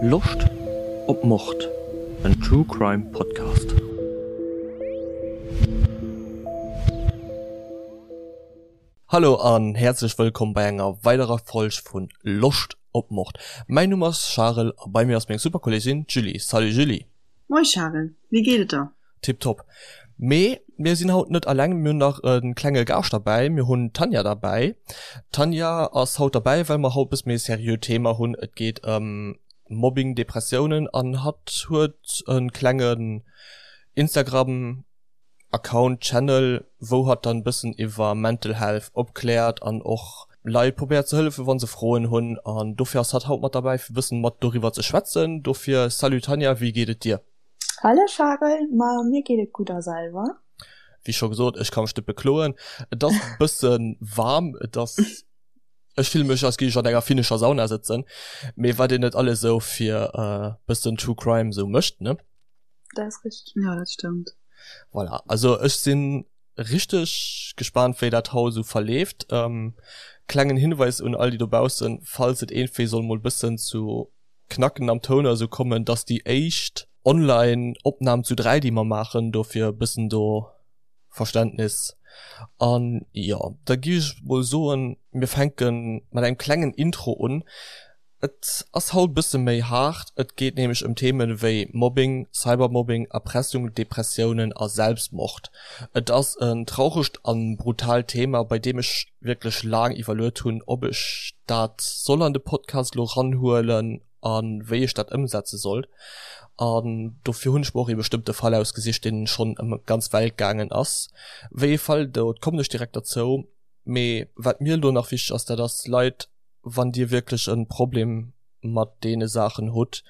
Loscht op Mord? En True Crime Podcast. Hallo an häerzlech wëllkomm bei enger weiderer Folg vun Loscht op Mord. Mäin Numm ass Charel a bei mir ass meng super Kolleegin d'Julie. Salut Julie! Moi Charel, wéi geet et der? Tiptop. Mee mir sinn haut net alleng, mir hunn nach e klenge Gaascht derbäi, mir hunn d'Tanja derbäi. D'Tanja ass haut derbäi, well mer haut e bësse méi e seriöt Thema hunn. Et geet ëm Mobbing, Depressiounen an hatt huet e klengen Instagram Account, Channel, wou hatt dann e bëssen iwwer Mental Health opkläert an och Leit probéiert ze hëllefen, wa se Froen hunn. An dofir ass hatt haut mat derbäi, fir e bëssen mat doriwwer ze schwätzen. Dofir salut Tanja, wéi geet et dir? Hallo Charel, ma mir geet et gutt a selwer? Wéi scho gesot, ech ka mech net bekloen. Et ass e bësse waarm, et ass, ech fille mech als géif ech an enger finnescher Sauna sëtzen, mee wat een net alles esou fir e bëssen True Crime esou mécht, ne? Dat ass richteg. Jo, dat stëmmt. Voilà, also ech si richteg gespaant wéi dat haut esou verleeft. Klengen Hinweis un all déi dobaussen, falls et iergendwéi soll mol bëssen zu Knacken am Toun oder sou kommen, dass déi éischt online Opnahm zu 3 déi mer maachen, dofir e bëssen do Verständnis. An jo, da gi ech mol soen, mir fänke mat engem klengen Intro un. Et ass haut bësse méi haart, et geet nämlech ëm Themen wéi Mobbing, Cybermobbing, Erpressung, Depressiounen a Selbstmord. Et ass en trauregt an brutaalt Thema, bei deem ech wierklech laang iwwerluet hunn, ob ech dat soll an de Podcast elo ranhuelen a wéi ech dat ëmsetze sollt. An dofir hunn ech mer och ee bestëmmte Fall ausgesicht, deen schonn ëm d'ganz Welt gaangen ass. Wéi ee Fall, do kommen ech direkt derzou. Mee wat mir elo nach wichteg ass, dat ass, Leit, wann Dir wierklech e Problem mat deene Saachen hutt,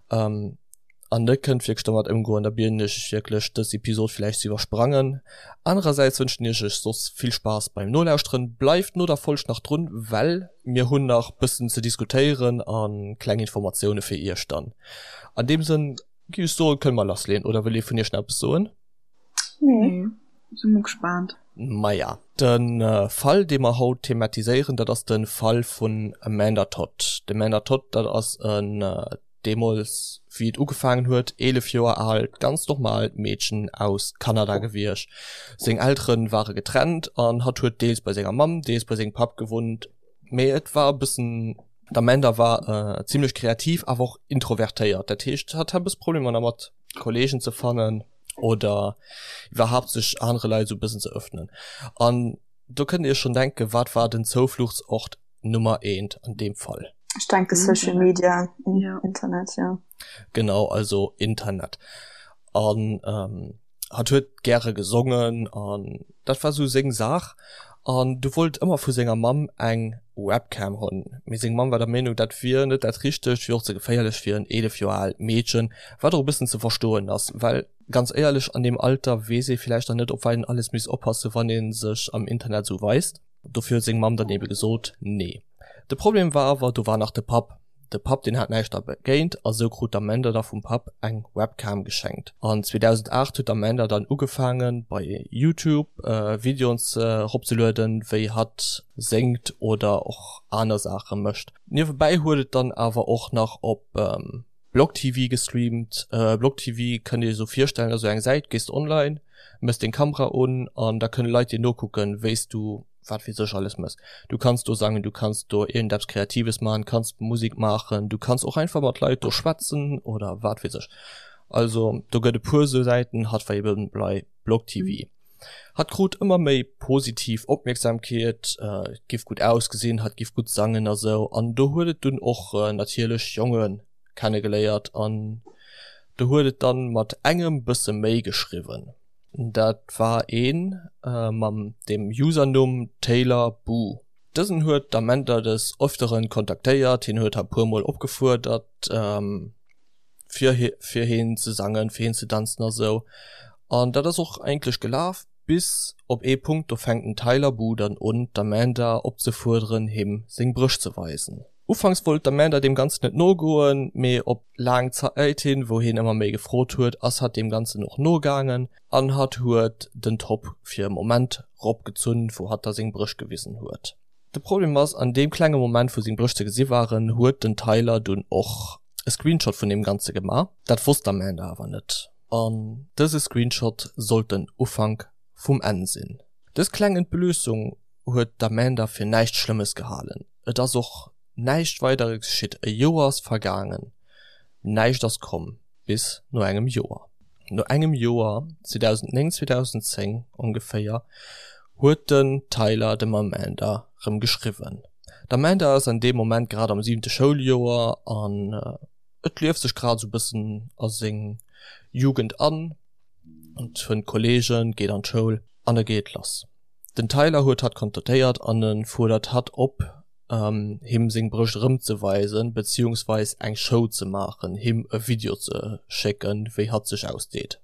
an net kënnt wierklech domat ëmgoen, da bieden ech iech wierklech dës Episod villäicht ze iwwersprangen. Anerersäits wënschen iech ech soss vill Spaass beim Nolauschteren. Bleift no der Folg nach drun, well mir hunn nach bëssen ze diskutéieren a kleng Informatioune fir iech dann. An deem Sënn gi ech soen, kënne mer lassleeën, oder wëll ee vun iech nach eppes soen? Nee, si mol gespaant. Maja, de Fall dee mer haut thematiséieren, dat ass de Fall vun Amanda Todd. D'Amanda Todd, dat ass en deemools wéi et ugefaangen huet, 11 Joer aalt, ganz normaalt Meedchen aus Kanada gewiescht. Seng Eltere ware getrennt an hatt huet deels bei senger Mamm, deels bei sengem Papp gewunnt. Mee et war e bëssen, d'Amanda war zimmlech kreativ, awer och introvertéiert. Dat heescht, hatt hat e bësse Problemer dermat, Kolleegen ze fannen oder iwwerhaapt sech anere Leit esou e bëssen ze ëffnen. An do kënnt Dir Iech schonn denken, wat war den Zoufluchtsort Nummer eent an deem Fall? Ech denke Social Media, Internet, jo. Genau, also Internet. An hatt huet gäre gesongen an dat war sou seng Saach. An du wollt ëmmer vu senger Mamm eng Webcam hunn. Mee seng Mamm war der Meenung, dat wier net dat Richtegt, wier och ze geféierlech fir en 11 Joer aalt Meedchen, wat och e bëssen ze verstoen ass, well ganz éierlech, an deem Alter weess ee villäicht nach net, op wat een alles misst oppassen, wann ee sech am Internet sou weist. Dofir huet seng Mamm dann ebe gesot, Nee. De Problem war awer, do war nach de Papp. De Papp, deen hat näischt dergéint a sou krut d'Amanda da vum Papp eng Webcam geschenkt. An 2008 huet d'Amanda dann ugefaangen, bei YouTube Videoen eropzelueden, wéi hatt séngt oder och aner Saache mécht. Niewebäi huet et dann awer och nach op BlogTV gestreamt. BlogTV kënnt dir iech esou virstellen, ass esou eng Säit, gees de online, mëss deng Kamera un an da kënne Leit dir nokucken, wéi s du wat weess ech alles mëss. Du kanns do sangen, du kanns do iergendeppes Kreatives maachen, kanns Musek maachen, du kanns och einfach mat Leit do schwätzen oder wat weess ech. Also do gëtt e puer esou Säiten, hatt war eben bei BlogTV. Hatt krut ëmmer méi positiv Opmierksamkeet, giff gutt ausgesinn, hatt giff gutt sangen a sou. An do huet et dunn och natierlech Jonge kennegeléiert an do huet et dann mat engem bësse méi geschriwwen. Dat war ee mam dem Usernumm Taylor Boo. Dësen huet d'Amanda des Öfteren kontaktéiert, hien huet hatt puer mol opgefuerdert fir fir heen ze sangen, fir heen ze danzen a sou. An dat ass och eigentlech gelaf, bis op ee Punkt, do fänkt den Tyler Boo dann un d'Amanda opzefuerderen him seng Brëscht ze weisen. Ufanks wollt d'Amanda deem Ganzen net nogoen, mee op laang Zäit hin, wou hien ëmmer méi gefrot huet, ass hatt deem Ganzen och nogaangen an hatt huet den Top fir e Moment ropgezunn, wou hatt da seng Brëscht gewisen huet. De Problem ass, an deem klenge Moment wou seng Brëscht ze gesi waren, huet den Tyler dunn och. e Screenshot vun deem Ganze gemaach. Dat wosst d'Amanda awer net. An dëse Screenshot sollt den Ufank vum Enn sinn. Dës kleng Entblössung huet d'Amanda fir näischt Schlëmmes gehalen. Et ass och näischt weider geschitt. E Joer ass vergaangen, näischt ass komm. Bis no engem Joer. No engem Joer, 2009, 2010 ongeféier, huet den Tyler dem Amanda rëm geschriwwen. D'Amanda ass an deem Moment grad am siwente Schouljoer an et lieft sech grad esou bëssen a seng Jugend an, et fënnt Kolleegen, geet an d'Schoul an da geet et lass. Den Tyler huet hatt kontaktéiert an e fuerdert hatt op, him seng Brëscht erëmzeweisen, beziehungsweis eng Show ze maachen, him e Video ze schécken, wéi hatt sech ausdeet.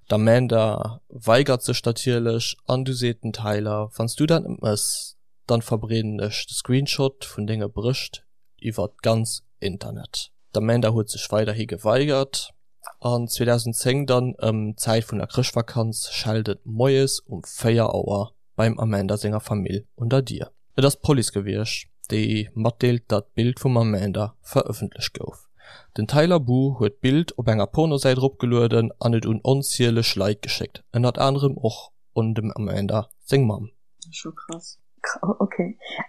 D'Amanda weigert sech natierlech an du seet den Tyler, Wann s du dat net mëss, dann verbreeden ech de Screenshot vun denge Brëscht iwwert d'ganz Internet. D'Amanda huet sech weiderhi geweigert an 2010 dann ëm d'Zäit vun der Chrëschtvakanz schellt et moies um 4 Auer beim Amanda senger Famill un der Dier. Et ass d'Police gewiescht, déi matdeelt, datt d'Bild vum Amanda verëffentlecht gouf. Den Tyler Boo huet d'Bild op enger Pornosäit eropgelueden an et un onzieleg Leit geschéckt, ënnert anerem och un dem Amanda seng Mamm. Scho krass. Ok.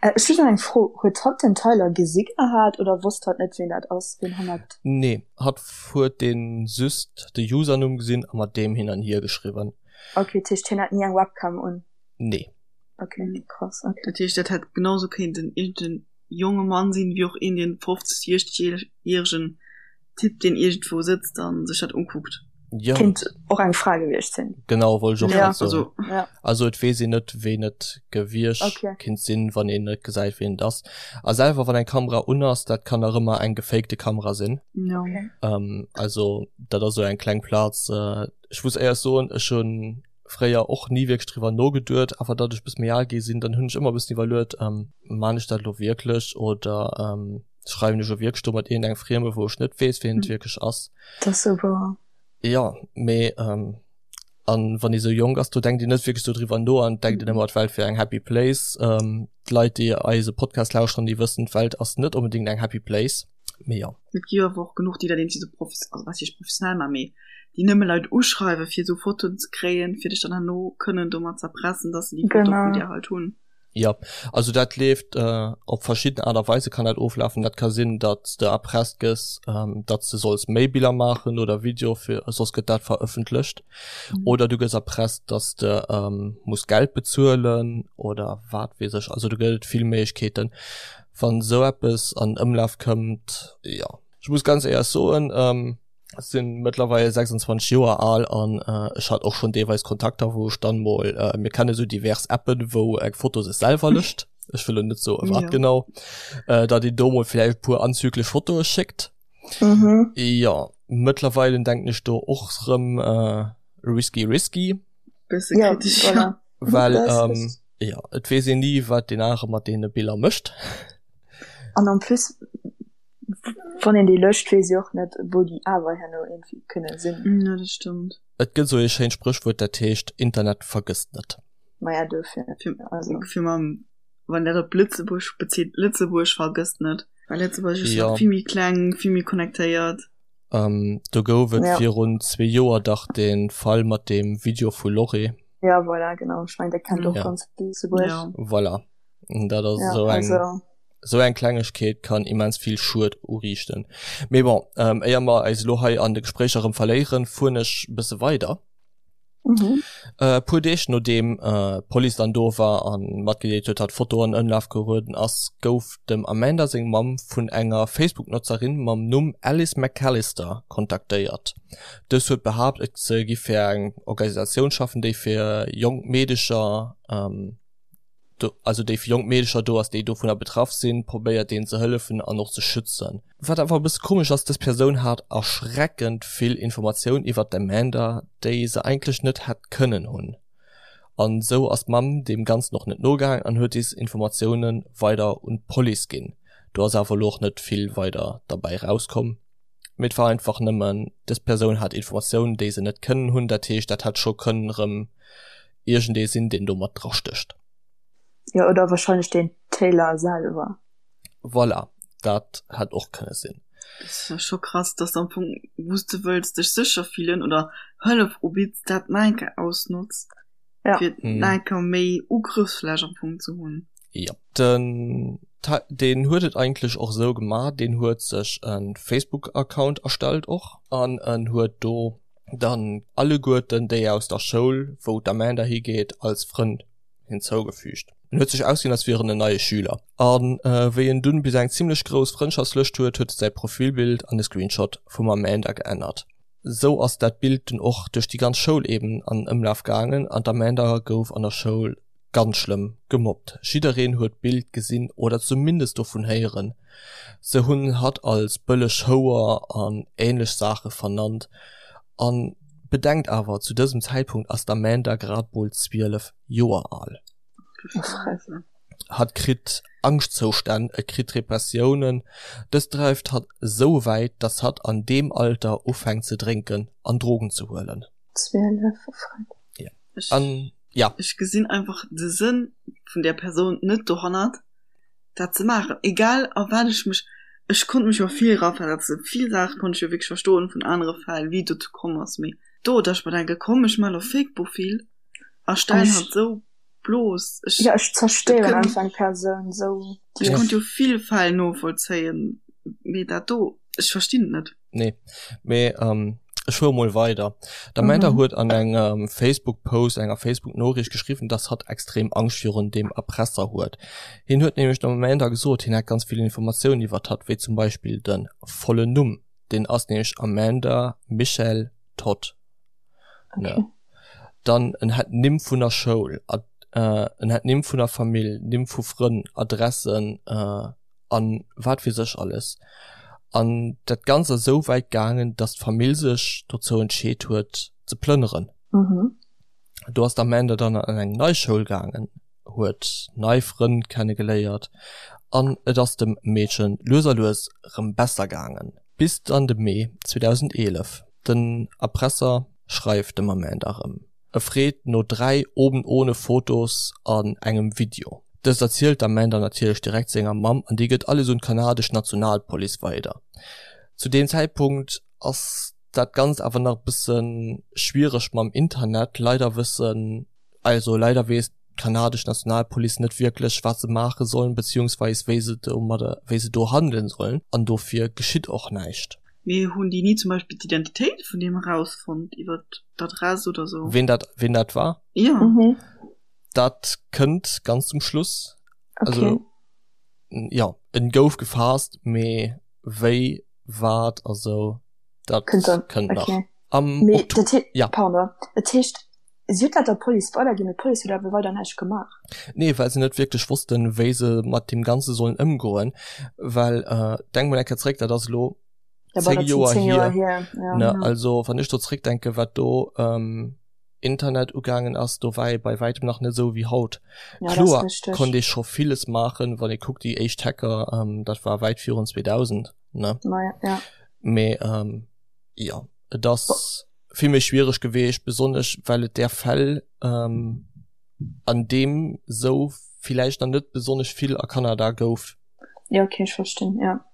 Ech hu nach eng Fro, Huet hatt den Tyler gesi gehat oder wosst hatt net ween dat ass, ween hannert. Nee, hatt huet dee just de Usernumm gesinn a mat deem hin an hier geschriwwen. Ok, dat heescht hien hat ni eng Webcam un? Nee. Ok, krass, ok. Dat heescht dat hätt genau sou kéinten iergend en jonge Mann sinn, wéi och een deen 50, 60 järegen Typ deen iergendwou sëtzt an sech dat ukuckt. Jo. Kéint och eng Fra gewiescht sinn. Genau, wollt ech och grad soen. Also, ja. Also et weess een net ween et gewiescht okay. kinnt sinn, wann een net gesäit ween et ass. A selwer wann eng Kamera un ass, dat kann nach ëmmer eng gefakte Kamera sinn. Ja. Okay. Ähm, also dat ass sou eng kleng Plaz. Äh, ech muss éierlech soen, ech hunn fréier och ni wierklech driwwer nogeduet, awer datt ech bësse méi al gi sinn, dann hunn ech ëmmer e bëssen iwwerluet, ähm, maan ech dat elo wierklech oder ähm, schreiwen ech elo wierklech do mat iergendengem Frieme, wou ech net weess, wien et wierklech ass. Dat ass sou wouer. Jo, mee ähm, an wann ee sou jonk ass, do denkt een net wierklech sou driwwer no an denkt een ëmmer, d'Welt wier eng happy place. Ähm, d'Leit, déi eise Podcast lauschteren, déi wëssen, d'Welt ass net onbedéngt eng happy place. Mee jo. Et gi jo awer och genuch, déi dat irgendwie sou profes-, also wat heescht professionell maachen, mee déi nëmme Leit uschreiwen, fir esou Fotoen ze kréien, fir dech dann herno kënnen domat z'erpressen, dass se déi Foto vun dir halt hunn. Jo, also dat leeft op verschidden Aart a Weise kann dat oflafen. Dat ka sinn, datt s de erpresst gëss, datt s de solls méi Biller maachen oder Video fir, soss gëtt dat verëffentlecht. Oder du gëss erpresst, datt s de muss Geld bezuelen oder wat weess ech. Also do gëtt et vill Méiglechkeeten. Wann esou eppes an Ëmlaf kënnt, jo. Ech muss ganz éierlech soen, ech sinn mëttlerweil 26 Joer al an ech hat och schonn deelweis Kontakter, wou ech dann mol, mir kenne sou divers Appen, wou eng Foto sech selwer löscht, ech wëll elo net soe wat genau, datt een do mol vläicht e puer anzüglech Fotoe schéckt. Jo, mëttlerweile denken ech do och rëm risky risky. Bësse kritesch, ja. Well jo, et weess een ni, wat deen anere mat deene Biller mécht. An en plus Wann een déi löscht, weess ee och net, wou déi awer herno iergendwéi kënne sinn. Jo, dat stëmmt. Et gëtt esou ee schéint Spréchwuert, dat heescht, Internet vergësst net. Maja, dofir. Fir, also. Fir mam, wann dat op Lëtzebuerg bezitt, Lëtzebuerg vergësst net. Well Lëtzebuerg ass nach vill méi kleng, vill méi connectéiert. Do gouf et virun zwee Joer dach de Fall mat deem Video vu Lorry. Ja, voilà, genau. Ech mengen, dat kennt och ganz Lëtzebuerg. Voilà. Dat ass esou eng. Esou eng Klengegkeet kann immens vill Schued uriichten. Mee bon, éier mer eis elo hei an de Gespréicher erëm verléieren, fueren ech e bësse weider. E puer Deeg nodeem d'Police dann do war a matgedeelt huet, datt d'Foto an Ëmlaf gerueden ass, gouf dem Amanda seng Mamm vun enger Facebook-Notzerin mam Numm Alice McAllister kontaktéiert. Dës huet behaapt, et se giff fir eng Organisatioun schaffen, déi fir jonk Meedecher, do, also déi fir jonk Meedecher do ass, déi dovunner betraff sinn, probéiert deenen ze hëllefen an och ze schützen. Wat awer e bësse komesch ass, dës Persoun hat erschreckend vill Informatioun iwwert d'Amanda, déi se eigentlech net hätt kënnen hunn. An esou ass d'Mamm deem Ganzen och net nogaang an huet des Informatioune weider un d'Police ginn. Do ass awer elo och net vill weider derbäi rauskomm, mee et war einfach nëmmen, dës Persoun hat Informatiounen, déi se net kënnen hunn. Dat heescht, dat hätt scho kënnen erëm iergendee sinn, deen do mat drastécht. Jo, oder wahrscheinlech den Taylor selwer. Voilà, dat hätt och kënne sinn. Dat ass jo scho krass, dass am Fong, wou s de wëlls dech sécher fillen oder Hëllef ubidds, dat nach eng Kéier ausnotz, Ja. fir nach eng Kéier méi Ugrëffsfläch am Fong ze hunn. Jo. Den deen huet et eigentlech och esou gemaach, deen huet sech e Facebook-Account erstellt och an en huet do dann alleguerten déi aus der Schoul, wou d'Amanda higeet, als Frënn hinzougefügt. En huet sech ausginn, als wier en en neie Schüler. A wéi en dunn bis eng zimmlech grouss Frëndschaftslëscht huet, huet e säi Profilbild an e Screenshot vum Amanda geännert. Sou ass dat Bild dunn och duerch déi ganz Schoul eben an Ëmlaf gaangen an d'Amanda gouf an der Schoul ganz schlëmm gemobbt. Jiddereen huet d'Bild gesinn oder zumindest dovun héieren. Se hunn hatt als bëlleg Houer an ähnlech Saache vernannt. An bedenkt awer, zu dësem Zäitpunkt ass d'Amanda grad mol 12 Joer al. Hatt kritt Angschtzoustänn, et kritt Depressiounen. Dëst dreift hatt esou wäit, dass hatt an deem Alter ufänkt ze drénken an Drogen ze huelen. 12, Ja. An ja. Ech gesinn einfach de Sënn vun där Persoun net dohannert, dat ze maachen. Egal a wat ech mech, ech konnt mech jo vill eraversetzen, vill Saache konnt ech jo wierklech verstoen vun anere Fäll, wéi et dozou komm ass, mee do, datt ech mer denke komm ech maachen elo Fake-Profil a stellen hatt esou bloos, ech, Ja, ech zerstéieren einfach eng Persoun esou. Ech konnt jo vill Fäll novollzéien, mee dat do, ech verstinn et net. Nee, mee ähm, ech fuere mol weider. D'Amanda mhm. huet an engem Facebook-Post, enger Facebook-Noriicht geschriwwen, dass hatt extrem Angscht virun dem Erpresser huet. Hien huet nämlech der Amanda gesot, hien hätt ganz vill Informatiounen iwwert hatt, wéi zum Beispill de vollen Numm. Deen ass nämlech Amanda Michelle Todd. Okay. Ne? Dann en hätt Nimm vun der Schoul, ad, äh, en hätt Nimm vun der Famill, Nimm vu Frënn, Adressen, äh, an wat weess ech alles. An dat Ganzt ass esou wäit gaangen, dass d'Famill sech dozou entscheet huet ze plënneren. Mhm. Do ass d'Amanda dann an eng nei Schoul gaangen, huet nei Frënn kenne geléiert an et ass dem Meedchen lues a lues rëm besser gaangen. Bis dann de Mee 2011. Den Erpresser schreift dem Amanda rëm. E freet no 3 oben ohne Fotos an engem Video. Dëst erzielt d'Amanda natierlech direkt senger Mamm an déi gëtt alles un d'kanadesch Nationalpolice weider. Zu deem Zäitpunkt ass dat Ganzt awer nach e bësse schwiereg mam Internet. Leider wëssen, also leider weess d'kanadesch Nationalpolice net wierklech wat se maache sollen, beziehungsweis wéi se domadder, wéi se do handelen sollen an dofir geschitt och näischt. Mee hunn déi ni zum Beispill d'Identitéit vun deem erausfonnt iwwer d'Adress oder sou? Ween dat, ween dat war? Ja. Mhm. Dat kënnt ganz zum Schluss. Okay. Also, ja, en gouf gefaasst, mee wéi, wat a sou, dat Kënnt dann, kënnt nach. okay. Am Mee Oktober, dat hee, ja. pardon, dat heescht, si huet dat der Police weiderginn, mee d'Police huet awer weider näischt gemaach. Nee, well se net wierklech wossten, wéi se mat deem Ganze sollen ëmgoen, well, äh, denk mol eng Kéier zréck, dat ass elo Ja, bah, 10 dat sinn Joer 10 hier, Joer hier, ja. ne? Ja. Also, wann ech do zréckdenken, wat do, ähm, Internet ugaangen ass, do war ee bei wäitem nach net esou wéi haut. Ja, dat ass Kloer richteg. konnt ee scho villes maachen, wann ee kuckt, déi éischt Hacker, ähm, dat war wäit virun 2000, ne? Ma ja, ja. Mee, ähm, jo, et ass vill méi schwiereg geweecht, besonnesch well et där Fäll, ähm, an deem sou villäicht nach net besonnesch vill a Kanada gouf. Ja, okay, ech verstinn, ja.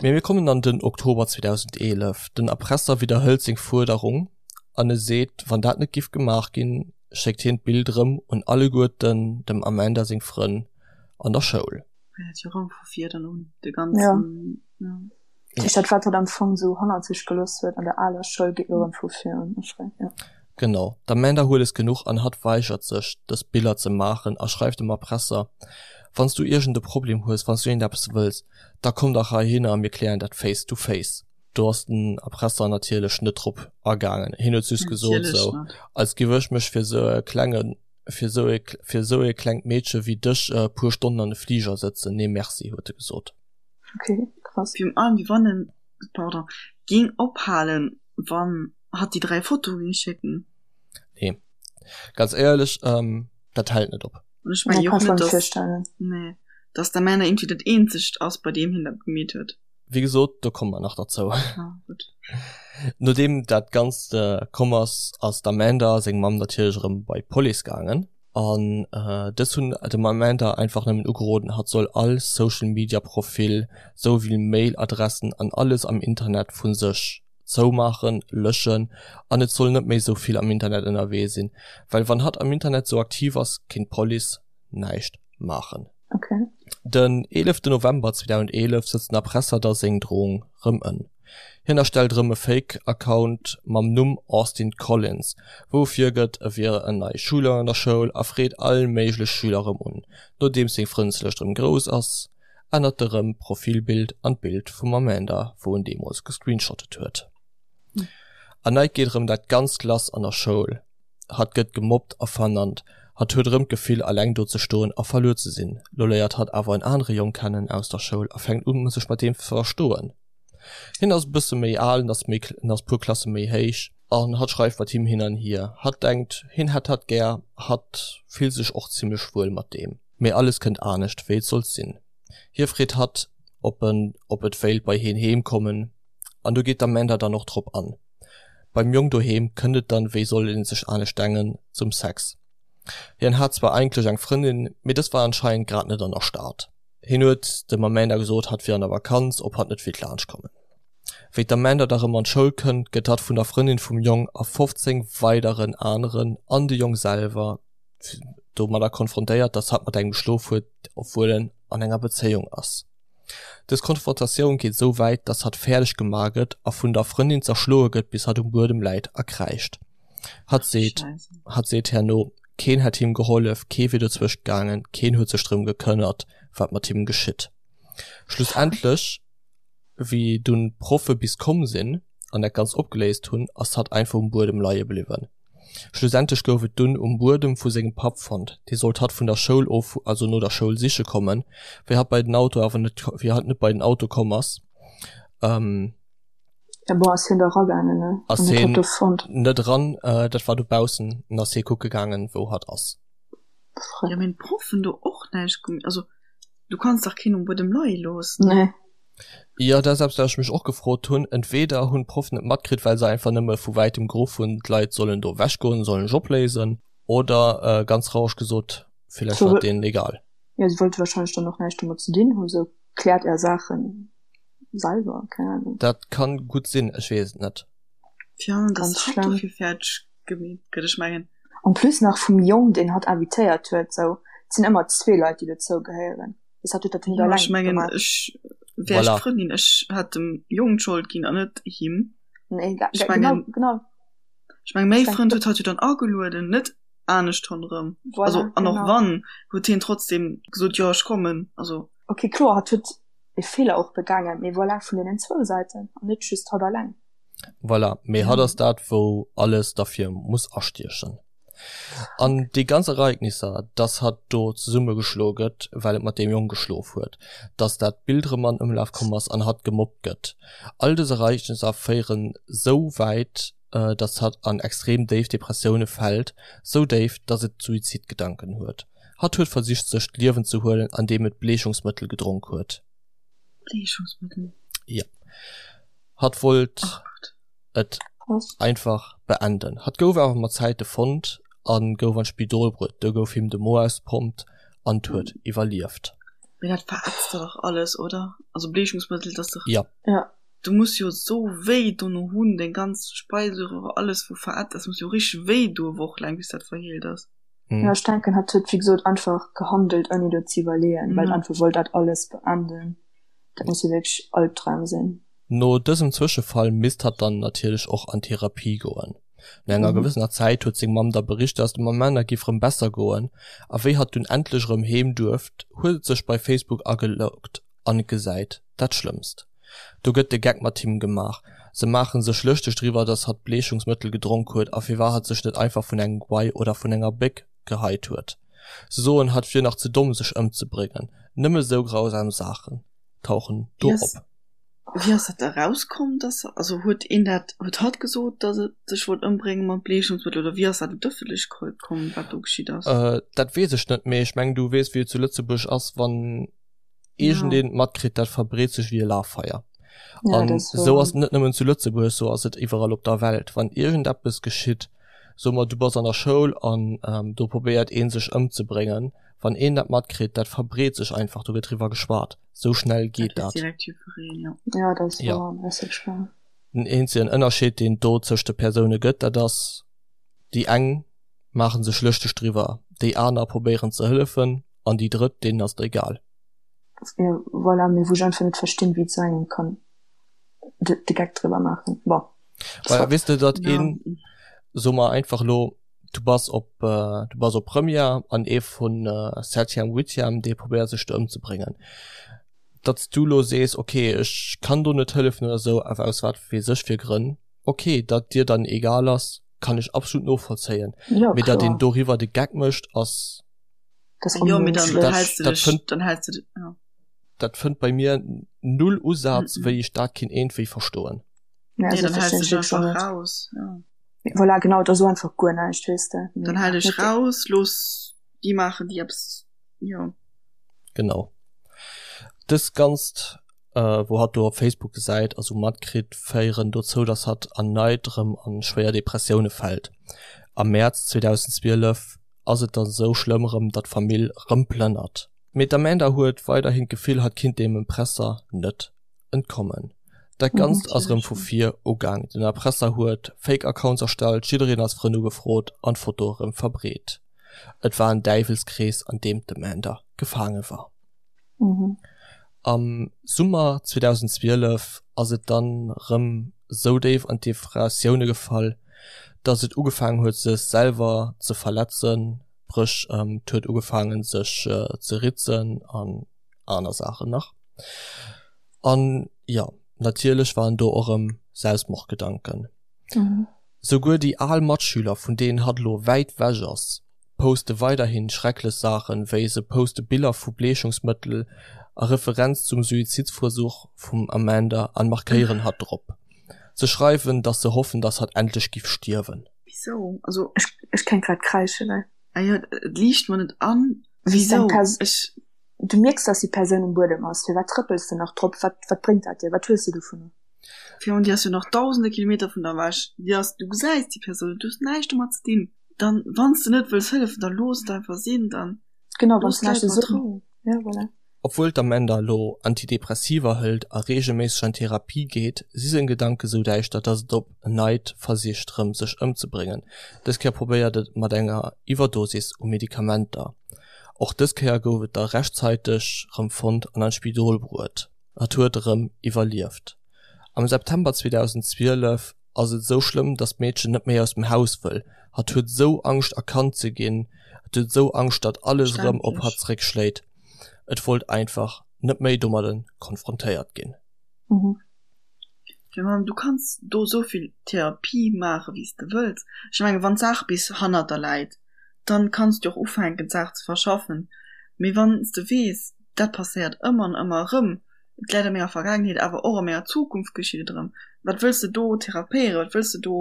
Mee mir kommen an den Oktober 2011. Den Erpresser widderhëlt seng Fuerderung an e seet, wann dat net giff gemaach ginn, schéckt hien d'Bild erëm un alleguerten dem Amanda seng Frënn an der Schoul. Fänkt jo erëm vu vir dann un, de ganzen, ja. Dat heescht, dat wat hatt am Fong esou hannert sech gelooss huet an der aler Schoul, geet elo erëm vu vir un. Ja. Genau, d'Amanda huet es genuch an hatt weigert sech, dës Biller ze maachen a schreift dem Erpresser, Wann s du iergend e Problem hues, wann s du iergendeppes wëlls, da komm dach heihinner a mir klären dat face to face. Do ass den Erpresser natierlech net drop agaangen. Hien huet just gesot, sou, als giff ech mech fir sou e klenge, fir sou e, fir sou e klengt Meedche wéi dech e puer Stonnen an e Fliger sëtzen. Nee merci, huet e gesot. Okay, krass. Virun allem, wéi wann en, pardon, géing ophalen, wann hatt déi 3 Fotoe géing schécken. Nee, ganz éierlech, ähm, dat hält net op. An ech mengen jo och net, dass, nee, dass d'Amanda irgendwie dat eenzegt ass, bei deem hien dat gemeet huet. Wéi gesot, do komme mer nach derzou. Ah, gutt. Nodeem dat Ganzt komm ass, ass d'Amanda seng Mamm natierlech erëm bei d'Police gaangen. An dës hunn dem Amanda einfach nëmmen ugeroden, hatt soll all Social Media Profil, sou wéi Mail Adressen an alles am Internet vu sech zoumaachen, löschen an et soll net méi sou vill am Internet ënnerwee sinn, well wann hatt am Internet sou aktiv ass, kéint d'Police näischt maachen. Okay. Den 11 November 2011 sëtzt den Erpresser da seng Drohung rëm ën. Hien erstellt erëm e Fake Account mam Numm Austin Collins, wou e virgëtt e wier en neie Schüler an der Schoul a freet all méiglech Schüler erëm un. Nodeems seng Frëndeslëscht erëm grouss ass, ännert e rëm d'Profilbild an d'Bild vum Amanda wou en deemools gescreenshottet huet. Erneit geet erëm dat ganzt lass an der Schoul, hatt gëtt gemobbt a vernannt, hatt huet erëm d'Gefill alleng do ze stoen a verluer ze sinn. Lo léiert hatt awer en anere Jong kennen aus der Schoul a fänkt un sech mat deem ze verstoen. Hien ass e bësse méi al, en ass méi, en ass puer Klasse méi héich an hatt schreift mat him hin an hier. Hatt denkt, hien hätt hatt gär, hatt fillt sech och zimmlech wuel mat deem. Mee alles kënnt anescht wéi et sollt sinn. Hie freet hatt, ob en, ob et wéilt bei hien heem kommen an do geet d'Amanda dann och drop an. Beim Jong doheem kënnt et dann, wéi soll een sech anescht dengen, zum Sex. Hien hat zwar eigentlech eng Frëndin, mee dës war anscheinend grad net an der Stad. Hien huet dem Amanda gesot, hatt wier an der Vakanz, ob hatt net wéilt laanscht kommen. Wéi d'Amanda da rëm an d'Schoul kënnt, gëtt hatt vun der Frëndin vum Jong a 15 weideren aneren an de Jong selwer domadder konfrontéiert, dass hatt mat engem geschlof huet, obwuel en an enger Bezéiung ass. Dës Konfrontatioun geet esou wäit, dass hatt fäerdeg gemaach gëtt a vun der Frëndin zerschloe gëtt, bis hatt um Buedem läit a kräischt. Hatt seet, hatt seet herno, keen hätt him gehollef, kee wier dozwëscht gaangen, keen huet sech drëm gekënnert, wat mat him geschitt. Schlussendlech, wéi dunn d'Proffe bis komm sinn an dat Ganzt opgeléist hunn, ass hatt einfach um Buedem leie bliwwen. Schlussendlech gouf et dunn um Buedem vu sengem Papp fonnt. Dee sollt hatt vun der Schoul of, also no der Schoul siche kommen, wéi hatt bei den Auto awer net, wéi hatt net bei den Auto komm ass. Ja bon, ass hien da ragaangen, ne? Ass An huet hatt hien do fonnt. net eran, äh, dat war dobaussen, an ass hie kucke gaangen, wou hatt ass. Verrückt. Ja, mee d'Proffen do och näischt gem-, also du kanns dach keen um Buedem leie loossen. Nee. Jo, dat ass eppes, wat ech mech och gefrot hunn. Entweder hunn d'Proffen et matkritt, well se einfach nëmme vu wäitem geruff hunn, d'Leit sollen do ewechgoen, sollen sech opléisen, oder, äh, ganz traureg gesot, villäicht war et deenen egal. Ja, si wollte wahrscheinlech dann och näischt domat ze dinn hunn, sou, kläert är Saachen. selwer, keng Ahnung. Dat kann gutt sinn, ech weess et net. Tja, dass Ganz hatt schlimm. dofir fäerdeg gemeet gëtt, ech mengen. En plus nach vum Jong, deen hatt invitéiert huet, sou, et sinn ëmmer zwee Leit, déi dozou gehéieren. Bis hatt huet dat net Jo, ech alleng mengen, gemaach. ech wär ech Voilà. d'Frëndin, ech hätt dem Jong d'Schold ginn an net him. Nee, ga, Ech ga, genau, mengen, genau. ech mengen, mäi Ech Frënd denk, huet hatt jo dann agelueden, net anescht ronderëm. Also, voilà, an och genau. wann, huet hien trotzdem gesot, jo, ech kommen, also. Ok, kloer, hatt huet e Feeler och begaangen, mee voilà, vun deenen zwou Säiten an net just hatt alleng. Voilà, mee hatt ass dat, wou alles derfir muss astiechen. An déi ganz Ereignisser, dass hatt do zesummegeschloe gëtt, well et mat deem Jong geschlof huet, dass dat Bild erëm an Ëmlaf komm ass an hatt gemobbt gëtt, all dës Ereignisser féieren sou wäit, dass hatt an extrem déif Depressioune fält, sou déif, dass et Suizidgedanken huet. Hatt huet versicht sech d'Liewen ze huelen andeem et Bleechungsmëttel gedronk huet. Bleechungsmëttel? Jo. Hatt wollt et einfach beenden. Hatt gouf awer mat Zäite fonnt a gouf an d'Spidol bruet. Do gouf him de Mo ausgepompt an huet iwwerlieft. Mee dat verätzt der dach alles, oder? Also Bleechungsmëttel, dat ass dach. Jo. Ja. Du muss jo sou wéi dono hunn, deng ganz Speiseröhre, alles wou verätzt ass, muss jo richteg wéi doe wochelaang bis dat verheelt ass. Ja, ech denken, hatt huet wéi gesot einfach gehandelt ouni do ze iwwerleeën, well einfach wollt dat alles beenden. Dat muss jo wierklech Albdram sinn. No dësem Zwëschefall misst hatt dann natierlech och an Therapie goen. No enger gewëssener Zäit huet seng Mamm da bericht, dass dem Amanda giff rëm besser goen, a wéi hatt dunn endlech erëm heem duerft, huet et sech bei Facebook ageloggt an gesäit dat Schlëmmst. Do gëtt de Geck mat him gemaach. Se maachen sech lëschteg driwwer, dass hatt Bleechungsmëttel gedronk huet a firwat hatt sech net einfach vun engem Guai oder vun enger Béck geheit huet. Se soen, hatt wier nach ze domm sech ëmzebréngen. Nëmme sou grausam Saachen tauchen do op. Wéi ass dat da rauskomm, dass, also huet een dat, huet hatt gesot, dass et sech wollt ëmbrénge mat Bleechungsmëttel oder wéi ass dat un d'Ëffentlechkeet komm, wat do geschitt ass? Dat weess ech net, mee ech mengen du weess wéi et zu Lëtzebuerg ass, wann iergendeen et matkritt, dat verbreet sech wéi e Lafeier. Ja, An dat ass esou ass wouer. et net nëmmen zu Lëtzebuerg, esou ass et iwwerall op der Welt. Wann iergendeppes geschitt. So mer du bass an der Schoul an ähm, do probéiert een sech ëmzebréngen. Wann een dat matkritt, dat verbreet sech einfach, do gëtt driwwer geschwat. Sou schnell geet dat. Direkt jiddwereen, ja. Ja, dat ass Ja. wouer, dat ass wierklech wouer. Den eenzegen Ënnerscheed, deen et do tëscht de Persoune gëtt, dat ass, déi eng maache sech lëschteg driwwer, déi aner probéieren ze hëllefen an déi drëtt, deenen ass et egal. Ja, voilà, mee wou ech einfach net verstinn, wéi et sou engem kann de, de Geck driwwer maachen. Bon, Well soit. weess de, datt Ja. een, soe mer einfach elo, du bass op, du bass op Première an ee vun Septième, Huitième, dee probéiert sech do ëmzebréngen. Datt s du elo sees, ok, ech kann do net hëllefen oder esou, awer aus wat weess ech fir Grënn, ok, datt dir dann egal ass, kann ech absolut novollzéien. Ja, Mee datt een kloer. doriwwer de Geck mécht, ass. Das Jo, mee dann Dat, häls du dat dech, fënnt, dann häls du dech, ja. dat fënnt bei mir null Usaz, Mhm. wéi ech dat kinnt iergendwéi verstoen. Ja, Nee, also dann verstinn häls du ech dech wierklech och einfach net. raus, ja. Voilà, genau, da so einfach guer näischt, weess de. Dann Mee hal dech net. raus, looss déi maachen, déi eppes, jo. Genau. Dëst Ganzt, wou hatt do op Facebook gesäit a sou matkritt, féieren dozou, dass hatt erneit erëm a schwéier Depressioune fält. Am Mäerz 2012 ass et dann sou schlëmm erëm, datt d'Famill erëm plënnert. Mee d'Amanda huet weiderhin d'Gefill, hatt kinnt deem Empresser net entkommen. Dat Ganzt ass erëm vu vir ugaang, den Erpresser huet Fake Accounts erstellt, jiddereen als Frënn ugefrot an d'Foto erëm verbreet. Et war en Däiwelskrees, an deem d'Amanda gefaange war. Am Summer 2012 ass et dann rëm sou déif an d'Depressioune gefall, dass et ugefaangen huet sech selwer ze verletzen, spréch et huet ugefaangen sech ze ritzen an aner Saachen nach. An jo, natierlech waren do och rëm Selbstmordgedanken. Souguer déi al Matschüler, vun deenen hatt elo wäit wech ass, poste weiderhin schrecklech Saachen, wéi se poste Biller vu Bleechungsmëttel a Referenz zum Suizidversuch vum Amanda an markéieren hatt drop. Se schreiwen, dass se hoffen, dass hatt endlech giff stierwen. Wisou? Also. Ech, ech kéint grad kräischen, ey. Ah jo, et liicht mer net an. Wisou? Wisou? Ech. Du mierks, dass déi Persoun um Buedem ass. Firwat trëppels de nach drop? Wat, wat bréngt dat dir? Wat hues de dovunner? Virun, déi ass jo nach dausende Kilometer vun der ewech. Déi ass, du gesäis déi Persoun net, du hues näischt domat ze dinn. Dann, wann s de net wëlls hëllefen, da looss et einfach sinn, dann Genau, wann looss s näischt d'Leit ze mat soen. Rou. Ja, voilà. Obwuel d'Amanda elo Antidepressiva hëlt a reegelméisseg an Therapie geet, si seng Gedanke sou däischter, datt et op en neit versicht rëm sech ëmzebréngen. Dës Kéier probéiert et mat enger Iwwerdosis u Medikamenter. Och dës Kéier gouf et da rechtzäiteg rëm fonnt an an d'Spidol bruet. Hatt huet erëm iwwerlieft. Am September 2012 ass et esou schlëmm, datt d'Meedchen net méi aus dem Haus wëll. Hatt huet esou Angscht erkannt ze ginn, hatt huet esou Angscht, datt alles erëm op hatt zeréckschléit. Et wollt einfach net méi domadde konfrontéiert ginn. Jo, ma du kanns do esou vill Therapie maache wéi s de wëlls. Ech mengen, wann d'Saach bis hannert der läit, dann kanns du och ufänken d'Saach ze verschaffen. Mee wann s de weess, dat passéiert ëmmer an ëmmer erëm, et läit a menger Vergaangenheet, awer och a menger Zukunft geschitt et erëm, wat wëlls de do therapéieren, wat wëlls de do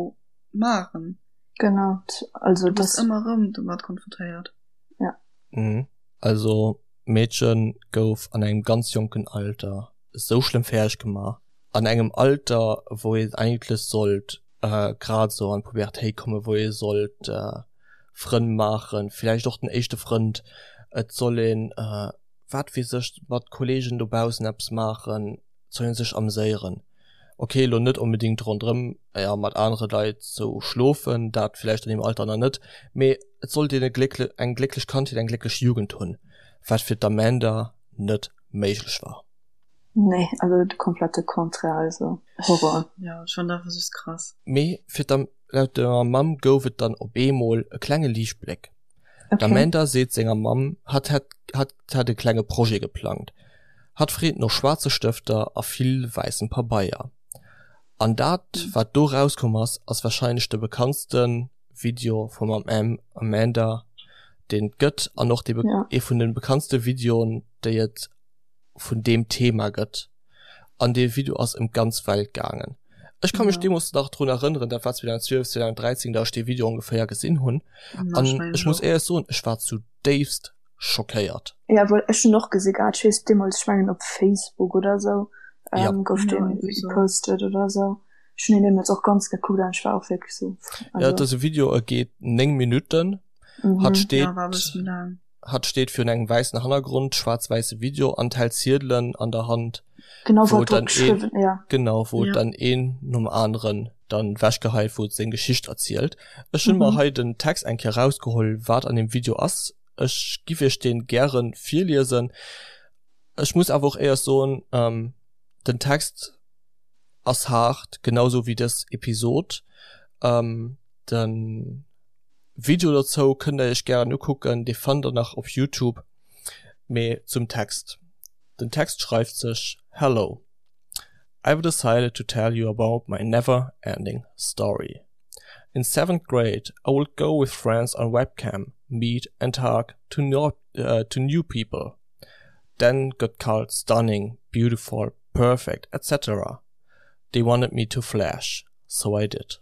maachen? Genau, also Du bass ëmmer erëm domat konfrontéiert. Ja. Mhm. Also d'Meedche gouf an engem ganz jonken Alter esou schlëmm fäerdeg gemaach, an engem Alter wou een eigentlech sollt grad esou an d'Pubertéit kommen, wou ee sollt Frënn maachen, villäicht och den éischte Frënd, et soll een wat weess ech, mat Kollegen dobaussen eppes maachen, et soll ee sech ameséieren. Ok, elo net onbedéngt ronderëm, jo, mat anere Leit sou schlofen, dat villäicht an deem Alter nach net, mee et sollt een e gléckle, eng glécklech Kandheet, eng glécklech Jugend hunn, wat fir d'Amanda net méiglech war. Nee, also de komplette Contraire, also Horror. Jo, ech fannen dat einfach just krass. Mee fir d'Am, laut der Mamm gouf et dann op eemol e klenge Liichtbléck. D'Amanda seet senger Mamm, hatt hätt hatt hätt e klenge Projet geplangt. Hatt freet no schwaarze Stëfter a vill wäissem Pabeier. An dat, wat do rauskomm ass, ass warscheinlech de bekanntste Video vum Amanda, deen et gëtt, an och dee ee vun de bekanntste Videoen, déi et vun deem Thema gëtt. An dee Video ass ëm d'ganz Welt gaangen. Ech ka mech deemools nach drun erënneren, dat war 2012, 2013, datt ech dee Video ongeféier gesinn hunn. An ech muss éierlech soen, ech war zudéifst schockéiert. Ja, well ech hunn och gesi gehat, ech weess deemools, ech mengen op Facebook oder esou, gouf dee gepostet oder esou. Ech hunn deen deemools och ganz gekuckt an ech war och wierklech sou, also. Ja, et ass e Video, e geet 9 Minutten. Mhm. Hatt steet, Ja, war e bësse méi laang. hatt steet virun engem wäissen Hannergrond, schwaarz-wäisse Video an hält Ziedelen an der Hand, Genau, wou wat drop dann een, geschriwwen, ja. genau, wou Ja. dann een nom aneren dann wechgeheit, wou et seng Geschicht erzielt. Ech hunn mer Mhm. hei den Text eng Kéier rausgeholl, wat an deem Video ass. Ech giff iech deen gären virliesen. Ech muss awer och éiers soen, ähm, den Text ass haart, genau sou wéi dës Episod. Ähm, den Video dozou kënnt der iech gären ukucken, dee fannt der nach op Youtube. Mee zum Text, Den Text schreift sech, Hello, I've decided to tell you about my never ending story. In seventh grade I would go with friends on webcam, meet and talk to no, uh, to new people. Then got called stunning, beautiful, perfect, etc. They wanted me to flash, so I did.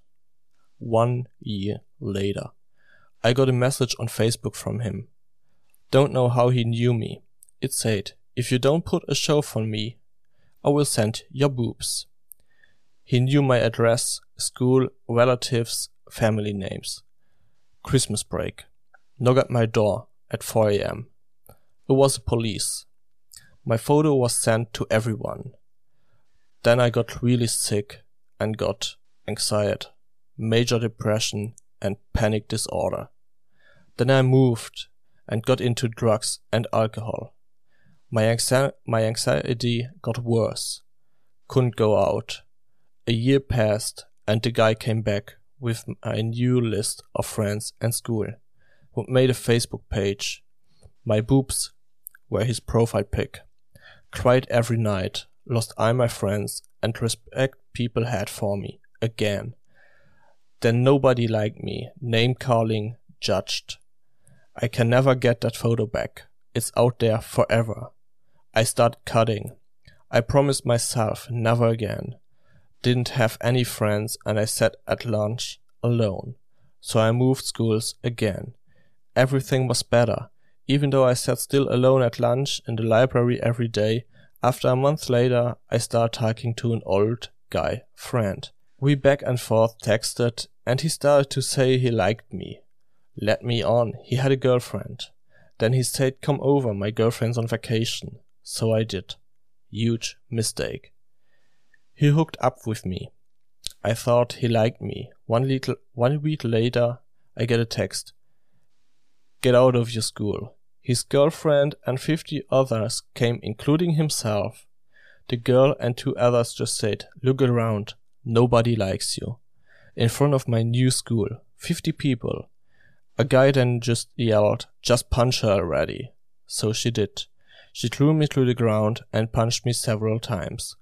One year later, I got a message on Facebook from him. Don't know how he knew me. It said, if you don't put a show for me, I will send your boobs. He knew my address, school, relatives, family names. Christmas break. Knock at my door at 4 a.m. It was the police. My photo was sent to everyone. Then I got really sick and got anxiety, major depression and panic disorder. Then I moved and got into drugs and alcohol. My, anxi my anxiety got worse. Couldn't go out. A year passed and the guy came back with a new list of friends and school, who made a Facebook page. My boobs were his profile pic. Cried every night, lost all my friends and respect people had for me again. Then nobody liked me, name calling, judged. I can never get that photo back. It's out there forever. I started cutting. I promised myself never again. Didn't have any friends and I sat at lunch alone. So I moved schools again. Everything was better. Even though I sat still alone at lunch in the library every day, after a month later I started talking to an old guy friend. We back and forth texted and he started to say he liked me. Let me on, he had a girlfriend. Then he said come over, my girlfriend's on vacation. So I did. Huge mistake. He hooked up with me. I thought he liked me. One little one week later I get a text. Get out of your school. His girlfriend and 50 others came including himself. The girl and two others just said, look around, nobody likes you. In front of my new school, 50 people. A guy then just yelled, just punch her already. So she did. She threw me to the ground and punched me several times.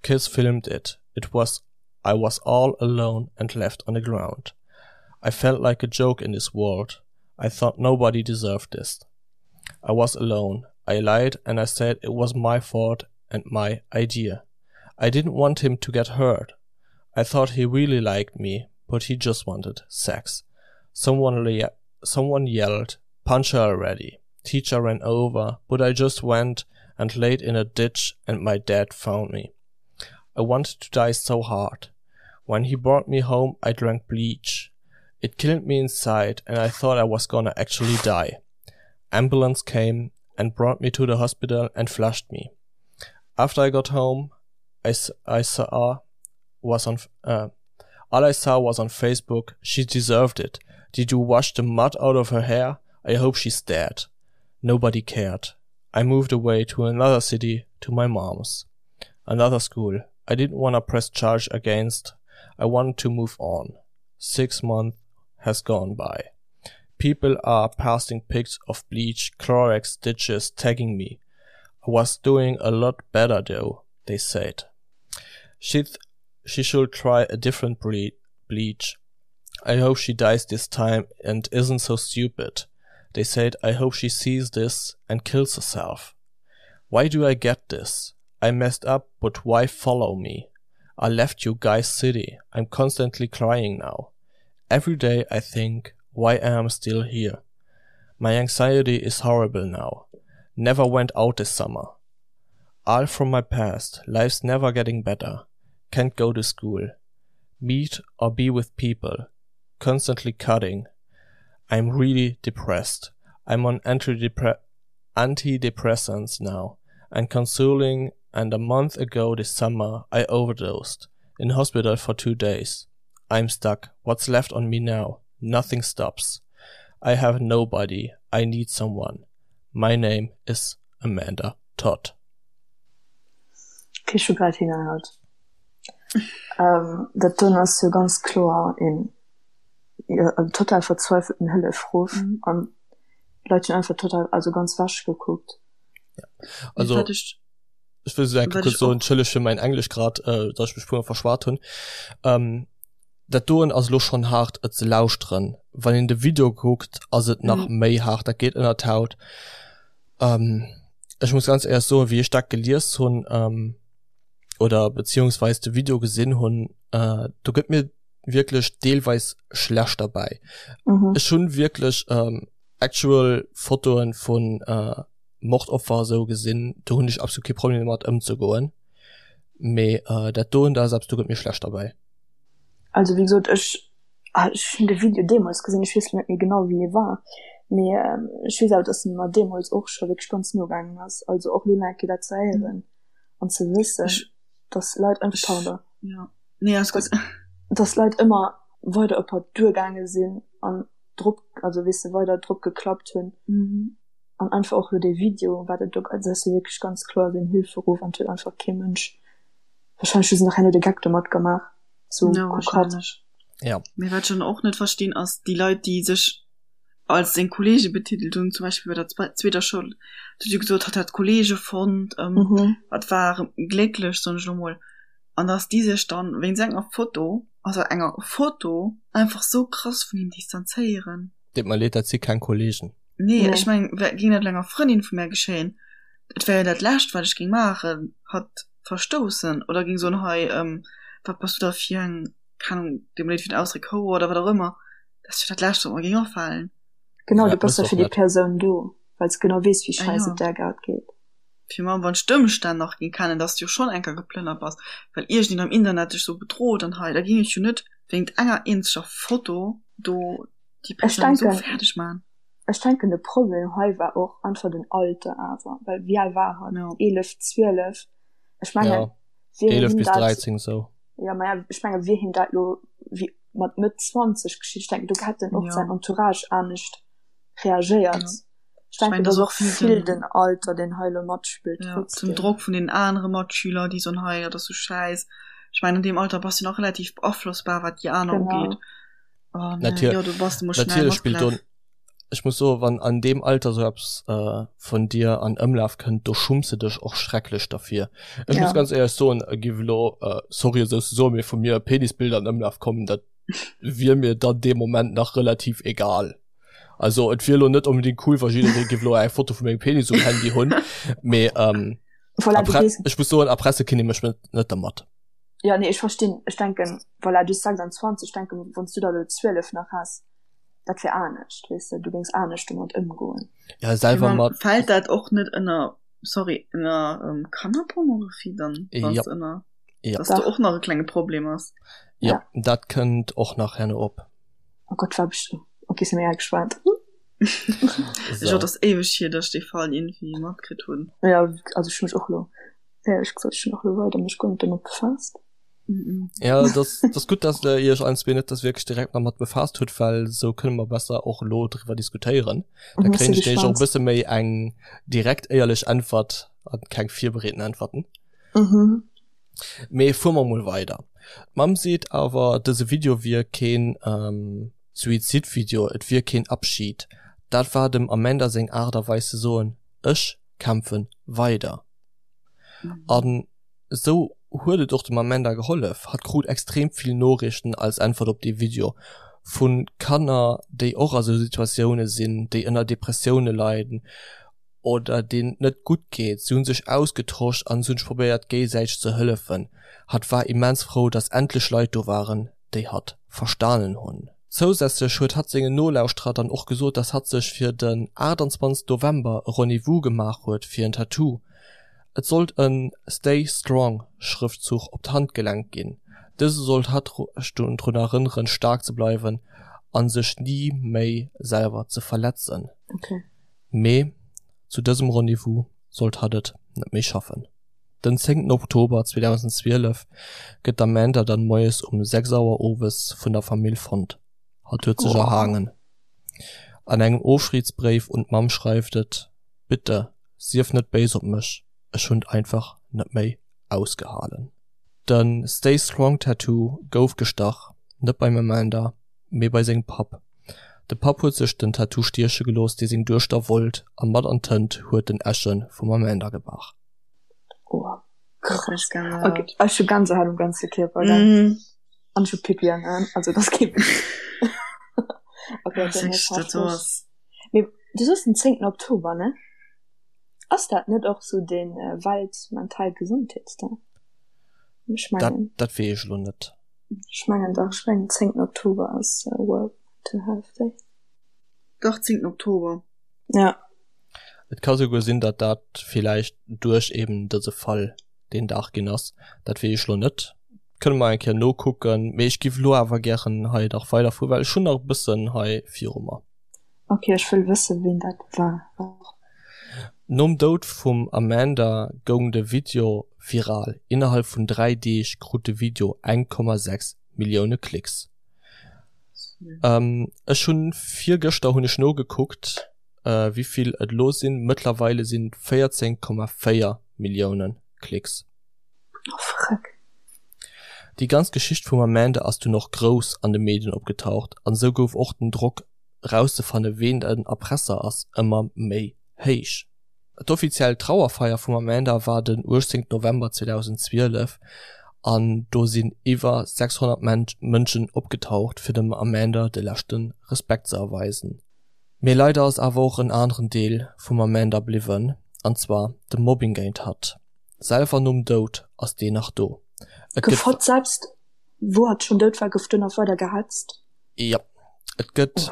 Kids filmed it. It was I was all alone and left on the ground. I felt like a joke in this world. I thought nobody deserved this. I was alone. I lied and I said it was my fault and my idea. I didn't want him to get hurt. I thought he really liked me, but he just wanted sex. Someone, le someone yelled, punch her already. Teacher ran over, but I just went and laid in a ditch and my dad found me. I wanted to die so hard. When he brought me home, I drank bleach. It killed me inside and I thought I was gonna actually die. Ambulance came and brought me to the hospital and flushed me. After I got home, I, I saw was on uh, all I saw was on Facebook. She deserved it. Did you wash the mud out of her hair? I hope she's dead. Nobody cared. I moved away to another city to my mom's. Another school. I didn't want to press charge against. I wanted to move on. Six months has gone by. People are passing pics of bleach, Clorox stitches, tagging me. I was doing a lot better though, they said. She th she should try a different ble bleach. I hope she dies this time and isn't so stupid. They said I hope she sees this and kills herself. Why do I get this? I messed up, but why follow me? I left you guys city. I'm constantly crying now. Every day I think why I am still here. My anxiety is horrible now. Never went out this summer. All from my past, life's never getting better. Can't go to school. Meet or be with people. Constantly cutting. I'm really depressed. I'm on antidepressants now and consoling and a month ago this summer I overdosed in hospital for two days. I'm stuck. What's left on me now? Nothing stops. I have nobody. I need someone. My name is Amanda Todd. Okay, ech hu grad hinnerhaut. Ähm, dat doen ass jo ganz kloer een jo, en total verzweifelten Hëllefruff mhm. an d'Leit hunn einfach total also ganz wasch gekuckt. Ja. Also ech will so kurz so entschëlleg fir mein Englisch grad äh, dass ich mech puer verschwat hunn. Ähm, dat doen ass lo schon hart et ze lauschteren. Wann een de Video kuckt, ass et nach mhm. méi hart, dat geet ënner d'Haut. Ähm, ech muss ganz ehrlich soen, wéi ech dat gelies hunn ähm, oder beziehungsweise de Video gesinn hunn, äh, do gëtt mir wierklech deelweis schlecht derbäi. Mhm. Ech hunn wierklech ähm, actual Fotoen vun äh, Mordopfer esou gesinn, do hunn ech absolut kee Problem domat ëmzegoen. Mee äh, dat doen, dat ass eppes, do gëtt mir schlecht derbäi. Also wéi gesot, ech ah, ech hunn de Video deemools gesinn, ech weess lo net méi genau wéi e war, mee ähm, ech weess awer, dass en mer deemools och scho wierklech ganz no gaangen ass. Also och lo nach eng Kéier dat ze héieren an ze wëssen, dass Leit einfach, pardon, ja. Nee, alles gutt. Dass Leit ëmmer weider op hatt duergaange sinn an drop, also weess de, weider drop geklappt hunn. Mhm. An einfach och lo dee Video, wat et do, also dat ass jo wierklech ganz kloer seng Hilferuf an et huet einfach kee Mënsch, wahrscheinlech hu se nach herno de Geck domat gemaach, sou Ja, kuck hatt. wahrscheinlech. Ja. Mee wat ech dann och net verstinn ass déi Leit déi sech als seng Kollege betitelt hunn, zum Beispill bei der zweeter Schoul, huet jo gesot, hatt hätt Kollege fonnt, Mhm. hatt war glécklech, soen ech elo mol, an dass déi sech dann wéinst enger Foto, also enger Foto, einfach sou krass vun him distanzéieren. Deet mer leed, dat si keng Kollegen. Nee, ech meng, géing dat enger Frëndin vu mär geschéien, et wär jo dat lescht wat ech géing maachen, hatt verstoussen oder géing soen, hei, wat bass du da fir eng, keng Ahnung, deet mer leed fir den Ausdréck, Houer oder wat och ëmmer. Dat ass jo dat lescht wat mer géing afalen. Genau, Ja, du bass mëss da och fir déi net. Persoun do, well s genau weess, wéi Ah schäiss ja. et där grad geet. Fir mol wann ech d'Ëmstänn nach géing kennen, dass du jo schonn eng Kéier geplënnert bass, well iergendeen am Internet dech sou bedroht an hei, da géing ech jo net wéingt enger eenzeger Foto do déi Ech Persoun sou denken, fäerdeg man. ech denken de Problem hei war och einfach den Alter awer, well wéi al war hatt? Ja. 11, 12? Ech mengen, Ja, wier 11 him bis dat, 13 sou. ja maja, ech menge wier him dat lo wéi mat Mëtt 20 geschitt, ech denken do hätt en och Ja. säin Entourage anescht reagéiert. Ja. Ech denken, mengen, et ass dass och och vill vill den den Alter, deen hei elo matspillt ja, den trotzdem. Drock vun den anere Matschüler, déi soen, hei, dat ass sou schäiss. Ech mengen, an deem Alter bass du nach relativ beaflossbar, wat déi aner Genau. ugeet. An äh, Natür jo, du bass du mol schnell natierlech spillt do matgelaf. ech muss soen, wann an deem Alter sou eppes äh, vun dir an Ëmlaf kënnt, do schumms de dech och schrecklech derfir. Ech muss Ja. ganz éierlech soen, e giff elo, äh, sorry esou ze soen, mee vu mir Penisbilder an Ëmlaf kommen, dat wier mir dann dee Moment nach relativ egal. Also et wier elo net unbedingt cool, wa jidderee giff elo eng Foto vu mengem Penis um Handy hunn, mee ähm, Voilà, du erpre gees ech muss soen, erpresse kinnt ee mech net net dermat. Ja, nee, ech verstinn. Ech denken, voilà, du 26, ech denken, wann s du der elo 12 nach häss, dat wär anescht, weess de, du géings anescht domat ëmgoen. Ja, selwer Mee mat. Fält dat och net ënner, sorry, ënner ähm, Kannerpornografie dann, wann Ja. s ënner, Ja. dass do Dach. och nach e klenge Problem ass? Ja, Ja. dat kënnt och nach herno op. Oh Gott, war best okay, si mir gespannt. Ech So. och, dass éiweg hier, dass ech dee Fall iergendwéi matkritt hunn. Ja, also ech hu mech och lo, éierlech gesot, ech hunn och lo weider mech guer net domat befaasst. Mhm. Ja, das, das gutt, dass der Iech allen zwee net das wierklech direkt nach mat befaasst hutt, well sou kënne mer besser och elo driwwer diskutéieren. Da Mhm, kréien si ech nämlech och e gespannt. bësse méi eng direkt éierlech Äntwert an keng virbereeten Äntwerten. Mhm. Mee fuere mer mol weider. D'Mamm seet awer, dëse Video wier keen Suizidvideo, et wier keen Abschied. Dat war dem Amanda seng Aart a Weis ze soen, ech kämpfe weider. An esou huet et och dem Amanda gehollef. Hatt krut extrem vill Noriichten als Äntwert op dee Video, vu Kanner, déi och a sou Situatioune sinn, déi ënner Depressioune leiden oder deenen et net gutt geet. Si hunn sech ausgetosch an si hunn sech probéiert géisäiteg ze hëllefen. Hatt war immens frou, dass endlech Leit do waren, déi hatt verstanen hunn. Zousätzlech huet hatt sengen Nolauschterer dann och gesot, dass hatt sech fir den 28 November e Rendez-vous gemaach huet fir en Tattoo. Et sollt e Stay Strong Schrëftzuch op d'Handgelenk ginn. Dëse sollt hatt drun erënneren, staark ze bleiwen a sech ni méi selwer ze verletzen. Mee zu dësem Rendez-vous sollt hatt et net méi schaffen. Den zéngten Oktober 2012 gëtt d'Amanda dann moies um 6 Auer owes vun der Famill fonnt. Hatt huet sech erhaangen. An engem Ofschiedsbréif un d'Mamm schreift et, Bitte, sief net béis op mech, ech hunn et einfach net méi ausgehalen. De Stay Strong Tattoo gouf gestach, net beim Amanda, mee bei sengem Papp. De Papp huet sech den Tattoo stieche gelooss, dee seng Duechter wollt, a mat an d'Tënt huet en Äsche vum Amanda gebrach. Oh, krass. Okay, ech hu Gänsehaut um ganze Kierper, gell? Mhm. An ech hu Pipi an Aen, also das geht nicht. Okay, okay, nee, dat ass. Mee du soos den 10. Oktober, ne? Ass dat net och sou den äh, Weltmental Gesundheetsdag? Ech mengen. Dat, dat weess ech elo net. Ech mengen dach, ech mengen 10. Oktober ass äh, World Mental Health Day. Dach, 10. Oktober. Ja. Et ka souguer sinn, datt dat villäicht duerch eben dëse Fall deen Dag ginn ass. Dat weess ech elo net. Kënne mer eng Kéier nokucken. Mee ech giff elo awer gären hei nach weiderfueren, well ech hunn nach e bëssen hei viru mer. Ok, ech wëll wëssen, ween dat war. Nom Doud vum Amanda goung de Video viral. Innerhalb vun 3 Deeg krut de Video 1,6 Millioune Klicks. Ech hunn virgëschter hunn ech nogekuckt wéivill et elo sinn. Mëttlerweile sinn et 14,4 Millioune Klicks. Oh freck. Déi ganz Geschicht vum Amanda ass dunn och grouss an de Medien opgetaucht an esou gouf och den Drock erauszefanne ween den Erpresser ass ëmmer méi héich. D'offiziell Trauerfeier vum Amanda war den 18 November 2012 an do sinn iwwer 600 Mënschen opgetaucht fir dem Amanda de leschte Respekt ze erweisen. Mee leider ass awer och en aneren Deel vum Amanda bliwwen an zwar de Mobbing géint hatt. Selwer nom Doud ass deen nach do. Et gëtt. Gouf hatt selbst wou hatt schonn dout war gouf do nach weider gehetzt? Jo, et gëtt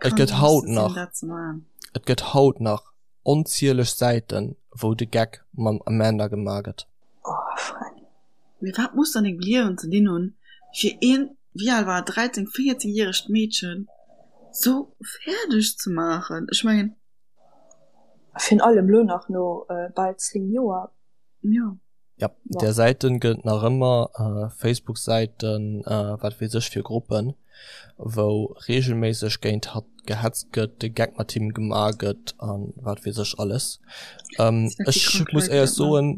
et gëtt haut nach et gëtt haut nach onzieleg Säiten wou de Geck mam Amanda gemaach gëtt. Oh freck. Mee wat muss an dengem Liewen ze dinn hunn fir een, wéi al war et, 13, 14 järegt Meedchen sou fäerdeg ze maachen? Ech mengen. Virun allem lo nach no bal 10 Joer. Jo. Ja, där Säiten gëtt et nach ëmmer, Facebook-Säiten, wat weess ech fir Gruppen, wou regelméisseg géint hatt gehetzt gëtt, de Geck mat him gemaach gëtt an wat weess ech alles. Ech muss éierlech soen,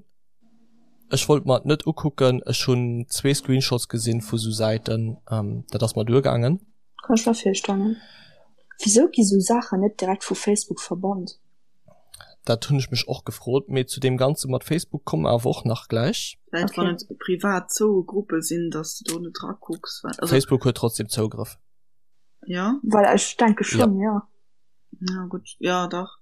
ech wollt mer et net ukucken, ech hunn zwee Screenshots gesinn vu sou Säiten, dat ass mer duergaangen. Kann ech mer virstellen. Wisou gi sou Saachen net direkt vu Facebook verbannt? Dat hunn ech mech och gefrot, mee zu deem Ganze mat Facebook komme mer awer och nach gläich. Vläicht wann et privat zoue Gruppe sinn, dass de do net drakucks, well also. Facebook huet trotzdem Zougrëff. Jo? Well ech denke schonn, jo. Ja gutt, jo dach.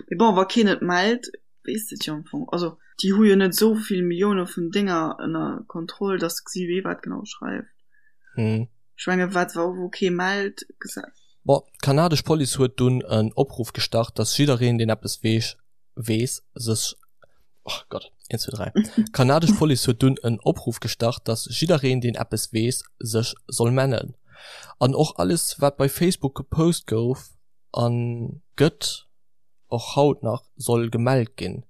Mee bon, wa keen et mellt, weess de et jo am Fong. Also déi hu jo net esou vill Millioune vun Dénger ënner Kontroll, dass se gesi wee wat genau schreift. Ech menge wat wou kee mellt, gesäit. Bon, d'kanadesch Police huet dunn en Opruff gestart, dass jiddereen, deen eppes weess, weess, sech, oh Gott, eent, zwee, dräi. D'kanadesch Police huet dunn en Opruff gestart, dass jiddereen, deen eppes weess, sech soll mellen. An och alles, wat bei Facebook gepost gouf a gëtt, och haut nach, soll gemellt ginn.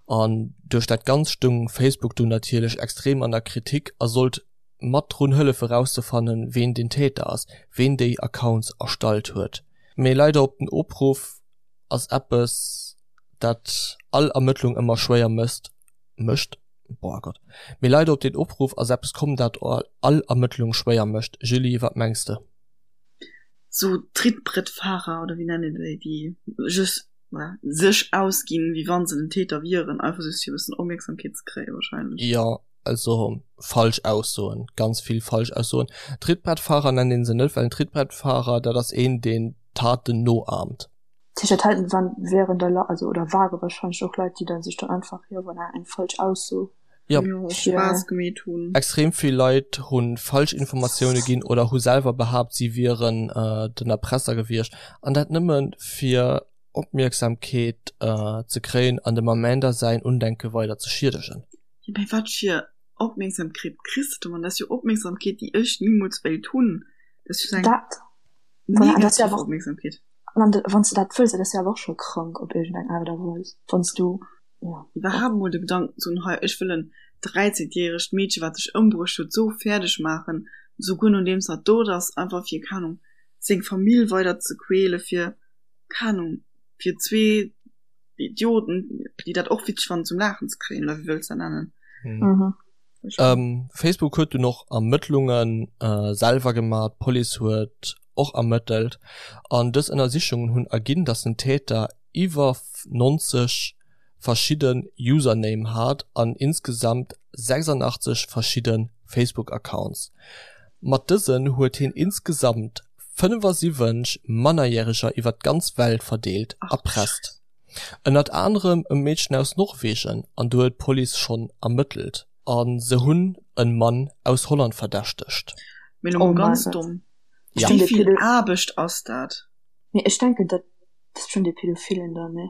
An duerch dat Ganzt stoung Facebook dunn natierlech extrem an der Kritik a sollt mat drun hëllef erauszefannen, ween den Täter ass, ween déi Accounts erstallt huet. Mee leider op den Opruff ass eppes dat all Ermëttlung ëmmer schwéier mësst, mécht, boah Gott, mee leider op den Opruff ass eppes komm dat all Ermëttlung schwéier mécht. Julie, wat mengs de? Sou Trittbrettfahrer oder wéi nennt een déi, déi just sech ausginn, wéi wann se den Täter wieren, einfach just fir e bëssen Opmierksamkeet ze kréien wahrscheinlech. Jo, Also falsch Aussoen, ganz vill falsch Aussoen. Trittbrettfahrer nennt een se net, well en Trittbrettfahrer, dat ass een, deen Taten noahmt. Sicher, dat waren, wären da, also oder ware wahrscheinlech och Leit, déi da sech dann einfach, jo voilà, eng falsch Ausso Ja. Spaass gemeet hunn. Extrem vill Leit hu falsch Informatioune ginn oder hu selwer behaapt, si wieren den Erpresser gewiescht. An dat nëmme fir Opmierksamkeet ze kréien an dem Amanda säin Undenke weider ze schiedegen. Jo, mee wat fir. Opmierksamkeet kriss de domat? Dat ass jo Opmierksamkeet, déi ech nimools wéilt hunn. Dat ass jo eng Dat, voilà, an dat ass jo negativ awer och, Opmierksamkeet. an wann s de dat wëlls, dat ass jo awer och scho krank op iergendeng Aart a Weis, wann s du, ja, Iwwerhaapt mol de Gedanken ze hunn, hei ech wëll en 13 järegt Meedche wat sech ëmbruecht huet sou fäerdeg maachen, souguer nodeems hatt dout ass, einfach fir, keng Ahnung, seng Famill weider ze quäle fir, keng Ahnung, fir zwee Idioten, déi dat och witzeg fannen zum Laachen ze kréien, oder wéi wëlls de dat nennen? Mhm. Ähm, Facebook huet dunn och Ermëttlunge selwer gemaach, d'Police huet och ermëttelt an dës Ënnersichungen hunn erginn, datt den Täter iwwer 90 verschidde Username hat an insgesamt 86 verschidde Facebook-Accounts. Mat dësen huet hien insgesamt 75 Mannerjäreger iwwer d'ganz Welt verdeelt erpresst. Ënnert anerem e Meedchen aus Norwegen an do huet d'Police schonn ermëttelt a se hunn e Mann aus Holland verdächtegt. Mee lo mol ganz domm, wéi vill Aarbecht ass dat? Mee ech denken dat ass schonn dee Pädophilen dann, nee?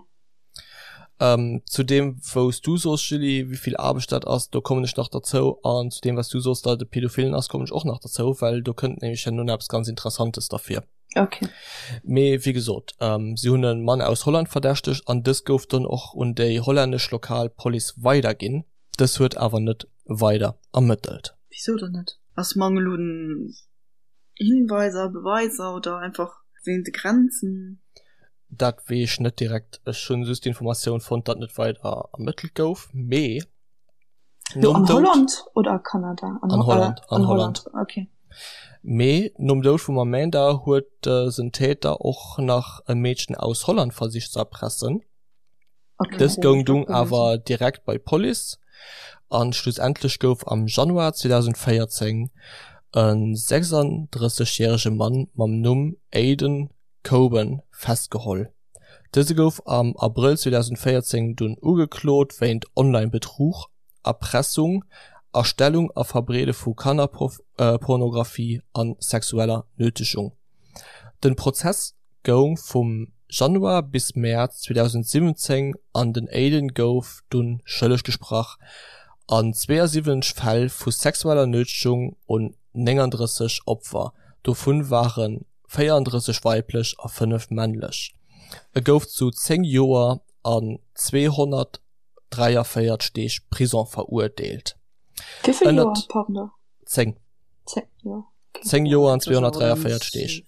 Zu deem wou s du soos Julie, wéi vill Aarbecht dat ass, do kommen ech nach derzou an zu deem wat s du soos, datt et e Pädophilen ass, kommen ech och nach derzou, well do kënnt nämlech herno nach eppes ganz Interessantes derfir. Okay. Mee wéi gesot, si hunn e Mann aus Holland verdächtegt an dës gouf dann och un déi hollännesch lokal Police weiderginn. Dës huet awer net weider ermëttelt. Wisou dann net? Ass Mangel un Hinweiser, Beweiser oder einfach wéint de Grenzen? Dat weess ech net direkt. Ech hunn just d'Informatioun fonnt, datt net weider ermëttelt gouf. Mee Lo an Holland oder a Kanada? An Holland, an Holland. Okay. Mee nom Doud vum Amanda huet dësen Täter och nach e Meedchen aus Holland versicht ze erpressen. Okay. Dës goung dunn awer direkt bei d'Police an schlussendlech gouf am Januar 2014 e 36 järege Mann mam Numm Aiden Coben festgeholl. Dëse gouf am Abrëll 2014 dunn ugeklot wéint Online-Betrug, Erpressung, Erstellung a Verbreede vu Kannerpornografie a sexueller Nötegung. Den Prozess goung vum Januar bis Mäerz 2017 an den Aiden gouf dunn schëlleg gesprach an 72 Fäll vu sexueller Nötegung un 39 Opfer, dovun waren 34 weiblech a 5 männlech. E gouf zu 10 Joer an 243 Deeg Prison verurteelt. Wéi vill Joer, pardon? 10. 10 Joer, okay. 10 Joer an 243 Deeg.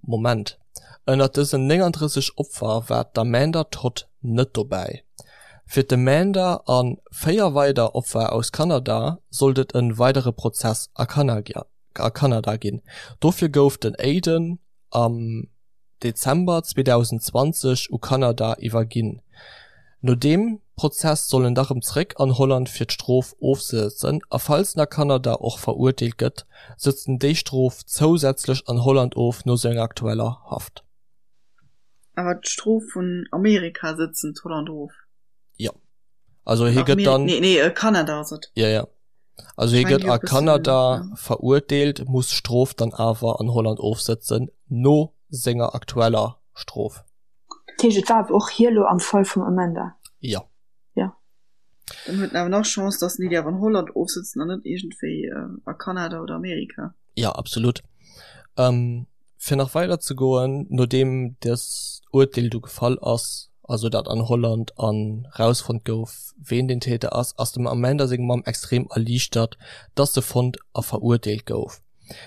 Moment, ënnert dësen 39 Opfer war d'Amanda Todd net dobäi. Fir d'Amanda a 4 weider Opfer aus Kanada sollt et e weidere Prozess a a Kanada ginn. Dofir gouf den Aiden am Dezember 2020 u Kanada iwwerginn. No deem Prozess soll en da rëm zeréck an Holland fir d'Strof ofzesëtzen a falls en a Kanada och verurteelt gëtt, sëtzt en déi Strof zousätzlech an Holland of no senger aktueller Haft. Awer d'Strof vun Amerika sëtzt en d'Holland of? Jo. Also hie gëtt dann. Nee, nee, Kanada ass et. Jo, jo. Also hie gëtt a Kanada verurteelt, muss d'Strof dann awer an Holland ofsëtzen, no senger aktueller Strof. Dat heescht, et war awer och hie lo am Fall vum Amanda? Jo. Jo. Dann huet en awer nach Chance, datt en déi awer an Holland ofsëtzen an net iergendwéi a Kanada oder Amerika. Jo, absolut. Fir nach weider ze goen, nodeem dëst Urteel du gefall ass, also dat an Holland an rausfonnt gouf, ween den Täter ass, ass dem Amanda seng Mamm extrem erliichtert, dass se fonnt a verurteelt gouf.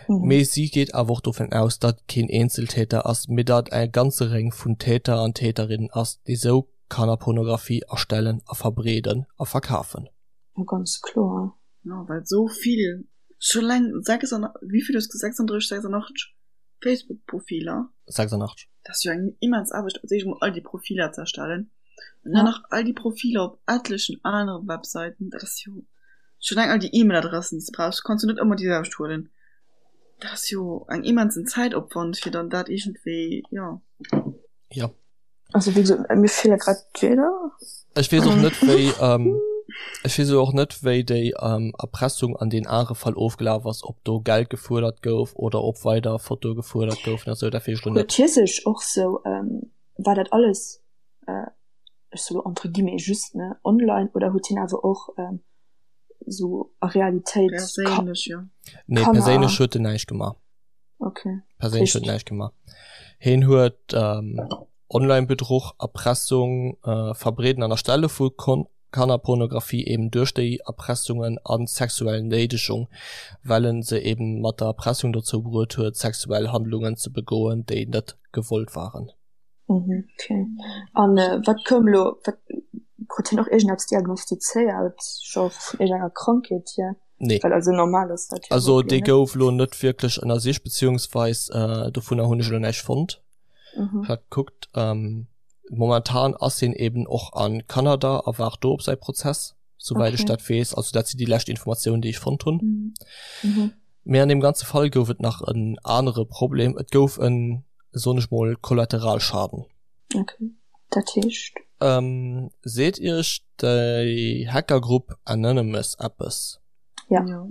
Mee si geet awer och dovun aus, datt et keen Eenzeltäter ass, mee datt et e ganze Réng vun Täter an Täterinnen ass, déi sou Kannerpornografie erstellen a verbreeden a verkafen. Jo, ganz kloer. Jo, well sou vill Scho leng 6 an wéivill hues de 36, 86 Facebook Profiler? 86. Dat ass jo eng immens Aarbecht als éischt mol all déi Profiler ze erstellen an dann nach all déi Profiler op etlechen anere Websäiten. Dat ass jo scho leng all déi E-Mail-Adressen déi s de brauchs, du kanns jo net ëmmer déi selwecht huelen. Dat ass jo eng immensen Zäitopwand fir dann dat iergendwéi jo. Jo. Also wéi gesot, mir feele grad d'Wierder. Ech weess och net wéi ech weess och net wéi déi Erpressung an deem anere Fall ofgelaf ass, ob do Geld gefuerdert gouf oder ob weider Fotoe gefuerdert goufen a sou, dat weess ech lo net. Huet hie sech och sou, war dat alles, ech soe lo entre guillemets just, ne, online oder huet hien awer och. sou a Realitéit Perséinlech, jo. Nee, Kanner. perséinlech huet en näischt gemaach. Okay. Perséinlech huet en näischt gemaach. Hien huet ähm, Online-Bedruch, Erpressung, äh, Verbreeden an Erstelle vu Kon Kannerpornografie eben duerch déi Erpressungen an sexuell Néidegung, well en se eben mat der Erpressung dozou bruet huet, sexuell Handlungen ze begoen, déi net gewollt waren. Mhm, okay. An äh, wat koum lo, wat krut hien och iergendeppes diagnostizéiert, scho vun iergendenger Krankheet hier? Nee. Well also normal ass dat jo Also überhaupt dee net. gouf lo net wierklech ënnersicht, beziehungsweis äh, dovunner hunn ech elo näischt fonnt. Mhm. Ech hat gekuckt, ähm, momentan ass hien eben och a Kanada a waart do op säi Prozess, souwäit ech Okay. dat weess. Also dat sinn déi lescht Informatiounen, déi ech fonnt hunn. Mhm. Mhm. Mee an deem ganze Fall gouf et nach en anere Problem, Et gouf en, soen ech mol, Kollateralschaden. Okay, dat heescht? Ähm, seet iech déi Hackergrupp Anonymous eppes? Ja. Jo.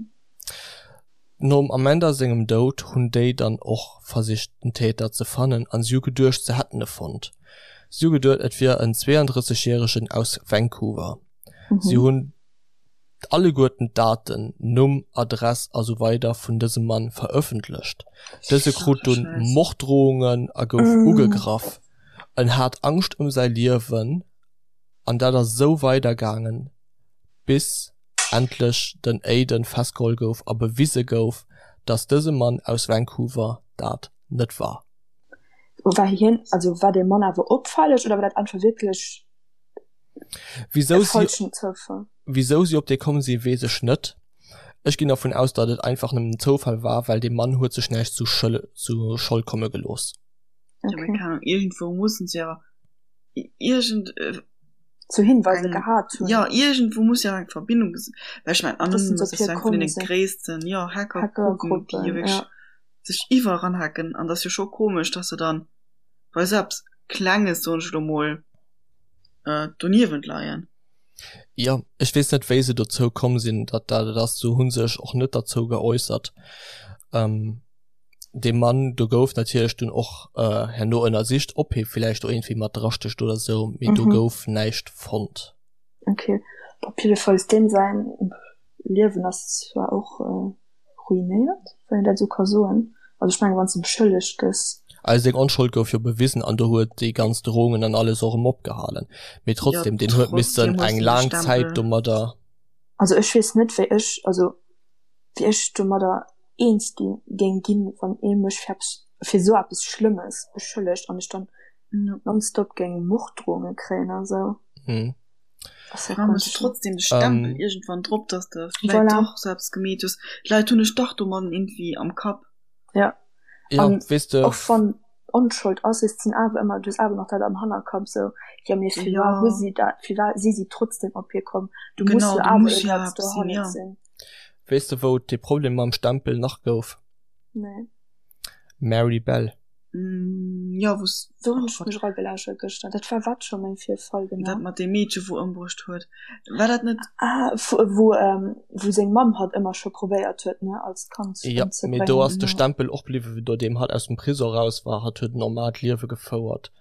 Nom Amanda sengem Doud hunn déi dann och versicht den Täter ze fannen an si hu geduecht se hätten e fonnt. Si hu geduet et wier en 32 järegen aus Vancouver. Si hunn alleguerten d'Daten, Numm, Adress a sou weider vun dësem Mann verëffentlecht. Dëse krut dunn Morddrohungen a gouf ugegraff. En hat Angscht ëm säi Liewen an dat ass esou weider gaangen, bis endlech den Aiden festgeholl gouf a bewise gouf, dass dëse Mann aus Vancouver dat net war. War hien, also war dee Mann awer opfälleg oder war dat einfach wierklech Wisou si, falschen Zoufall? wisou si op dee komm sinn, weess ech net. Ech ginn dervun aus, datt et einfach nëmmen en Zoufall war, well dee Mann huet sech näischt zu Schëll, zu Schold komme gelooss. Ja, mee Okay. keng Ahnung, iergendwou mussen se awer iergend äh, Zu Hinweise eng, gehat hunn. ja, iergendwou muss jo eng Verbindung ges-, well ech mengen, Dass se Anonymous op ass hie jo eng vun komm deene sinn. gréissten, jo, Hackergruppen, déi jo Hackergruppen, wierklech ja. sech iwwerall eranhacken, an dat ass jo scho komesch, dass se dann bei esou eppes Klenges, soen ech elo mol, äh, doniewent leien. Jo, ech weess net wéi se dozou komm sinn, datt dat et ass. Se hu sech och net derzou geäussert. Ähm, dee Mann do gouf natierlech dunn och äh, herno ënnersicht, ob hie villäicht do iergendwéi mat drastécht oder sou, mee do Mhm. gouf näischt fonnt. Okay. Op jiddefalls deem säin Liewen ass zwar och äh, ruinéiert, wann een dat esou ka soen. Also ech mengen, wann s de beschëllegt gëss. Also seng Onschold gouf jo bewisen an do huet déi ganz Drohungen an alles och erëm opgehalen. Mee Ja, trotzdem, deen huet missen trotzdem hues eng du de laang Zäit Stempel. domadder. Also ech weess net, wéi ech, also wéi ech domadder eens gi géing ginn, wann ee mech fir eppes, fir esou eppes Schlëmmes beschëllegt an ech dann Ja. nonstop géing Morddrohunge kréien a sou. Hm. Ass ja Dann hues ganz du schlëmm. trotzdem de Stempel Ähm. iergendwann drop, dass de vläit Voilà. dach sou eppes gemeet hues. D'Leit hunn dech dach domadden iergendwéi am Kapp. Ja. Ja, An weess de. och wann Onschold ass, et sinn awer ëmmer, du hues awer nach dat am Hannerkapp sou, jo mee firwat Ja. hu si dat, firwat si si trotzdem op hie komm, du muss Genau, jo do awer muss jo iergendeppes eppes sinn, dohannert ja. sinn. Weess de wou et dee Problem mam Stempel nach gouf? Nee. Mary Bell. Mm, ja, wou's, Do hunn oh ech Gott. mech eragelauschert gëschter. Dat war wat scho méi fir e Fall Dat genau? mat deem Meedche wou ëmbruecht huet. War dat net. Ah, wou, wou seng Mamm hatt ëmmer scho probéiert huet, ne, als Kand Ja, mee do ëmzebréngen. ass de Stempel och bliwwen, nodeem hatt aus dem Prisong raus war. Hatt huet en normaalt Liewe gefouert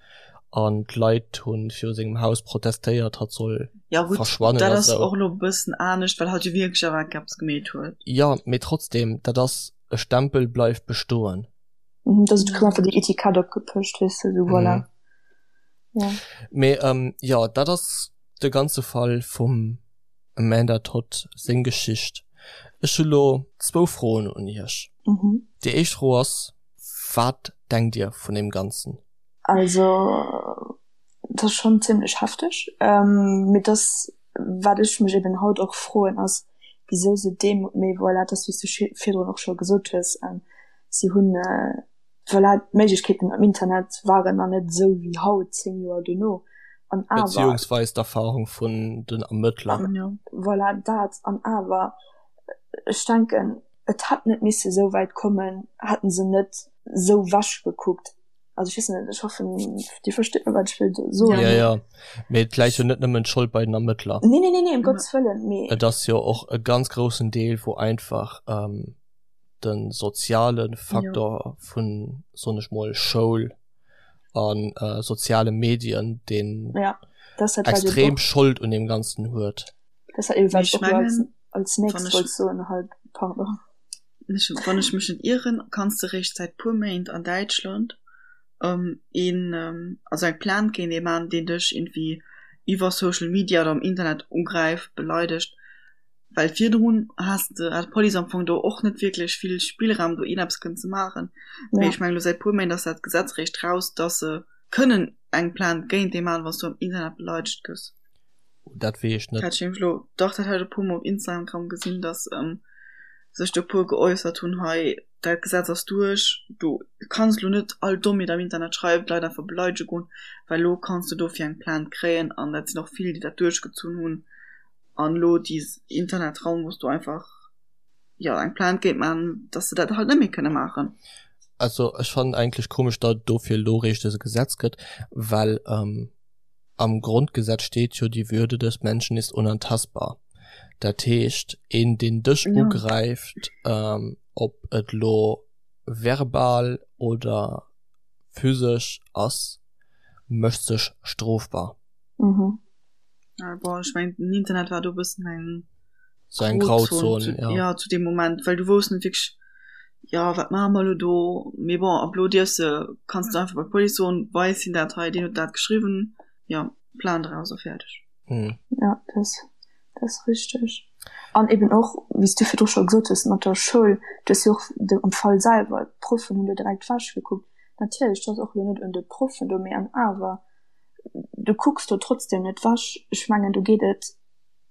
an d'Leit hu viru sengem Haus protestéiert, hatt soll Ja gutt, verschwannen dat a ass sou. och elo e bëssen anescht, well hatt jo wierklech awer eppes gemeet huet. Jo, mee trotzdem, dat ass, e Stempel bleift bestoen. Mhm, dass et koum einfach déi Etikett opgepëscht, weess de, sou voilà. Mhm. Ja. Mee ähm, jo, dat ass de ganze Fall vum Amanda Todd seng Geschicht. Ech hu lo zwou Froen un iech. Mhm. Déi éischt Fro ass, Wat denkt dir vun deem Ganzen? Also, dat ass schonn zimlech hefteg. Ähm, mee dass, wat ech mech eben haut och froen, ass, wisou se deem, mee voilà, dat ass wéi s du virdrun och scho gesot hues, ähm, si hunn, voilà, d'Méiglechkeeten am Internet waren nach net esou wéi haut, 10 Joer dono, an awer. Beziehungsweis d'Erfahrung vun den Ermëttler. Voilà, dat, an awer, ech denken, et hätt net misse esou wäit kommen, hätten se net esou wech gekuckt. Also ech weess net, ech hoffen, Dir verstitt mech, wat ech wëll soen. Jo, jo, mee et läit jo net nëmmen d'Schold bei den Ermëttler. Nee, nee, nee, nee, ëm Gottes Wëllen, mee. Et ass jo och e ganz groussen Deel, wou einfach de soziale Faktor vun, soen ech mol, Schoul a soziale Medien, deen Ja, dat ass dat, wat eben extrem och. Schold un deem Ganzen huet. Dat ass dat eben, wat Mee ech och elo als mengen. Als nächst wollt soen halt, pardon. Wann ech mech net ieren, kanns de réischt säit puer Méint an Däitschland een, also eng Plainte géint ee man, deen dech irgendwie iwwer Social Media oder am Internet ugräift, beleidegt. Well virdrun has de, hat d'Police am Fong do och net wierklech vill Spillraum do ieneppes kënnen ze maachen. Mee ech mengen elo säit puer Méint ass dat Gesetz réischt raus, dass se kënnen eng Plainte géint ee man, wann s du am Internet beleidegt gëss. Dat weess ech net. Dat ech nämlech elo, dach dat hat ech e puer mol op Instagram gesinn, dass sech do e puer geäussert hunn, hei dat Gesetz ass duerch, du kanns elo net all Dommheet am Internet schreiwen, d'Leit einfach beleidege goen, well elo kanns du dofir eng Plainte kréien an dat sinn och vill, déi dat duerchgezunn hunn an elo déi Internetraum, wou s du einfach jo eng Plainte géint maachen, dass se dat halt net méi kënne maachen. Also ech fannen eigentlech komesch, datt et dofir elo eréischt dëse Gesetz gëtt, well Am Grondgesetz steet jo, Die Würde des Menschen ist unantastbar. Dat heescht, een deen dech ugräift, ob et lo verbal oder physesch ass, mécht sech strofbar. Bon, ech mengen den Internet war do e bëssen eng Sou eng Grauzon, zu, ja. ja zu deem Moment, well du wousst net wierklech, jo wat maache mer elo do, mee bon ab elo dierfs de, kanns du einfach bei d'Police soen, weis him dat hei, deen huet dat geschriwwen, jo Plainte eraus a fäerdeg. Mhm. Ja, dat dat ass richteg. An eben och, wéi s du virdru scho gesot hues, mat der Schoul, du hues jo och de am Fall selwer, d'Proffen hunn do direkt wech gekuckt. Natierlech, dat ass och elo net un de Proffen do, mee an awer, du kucks do trotzdem net wech. Ech mengen, do geet et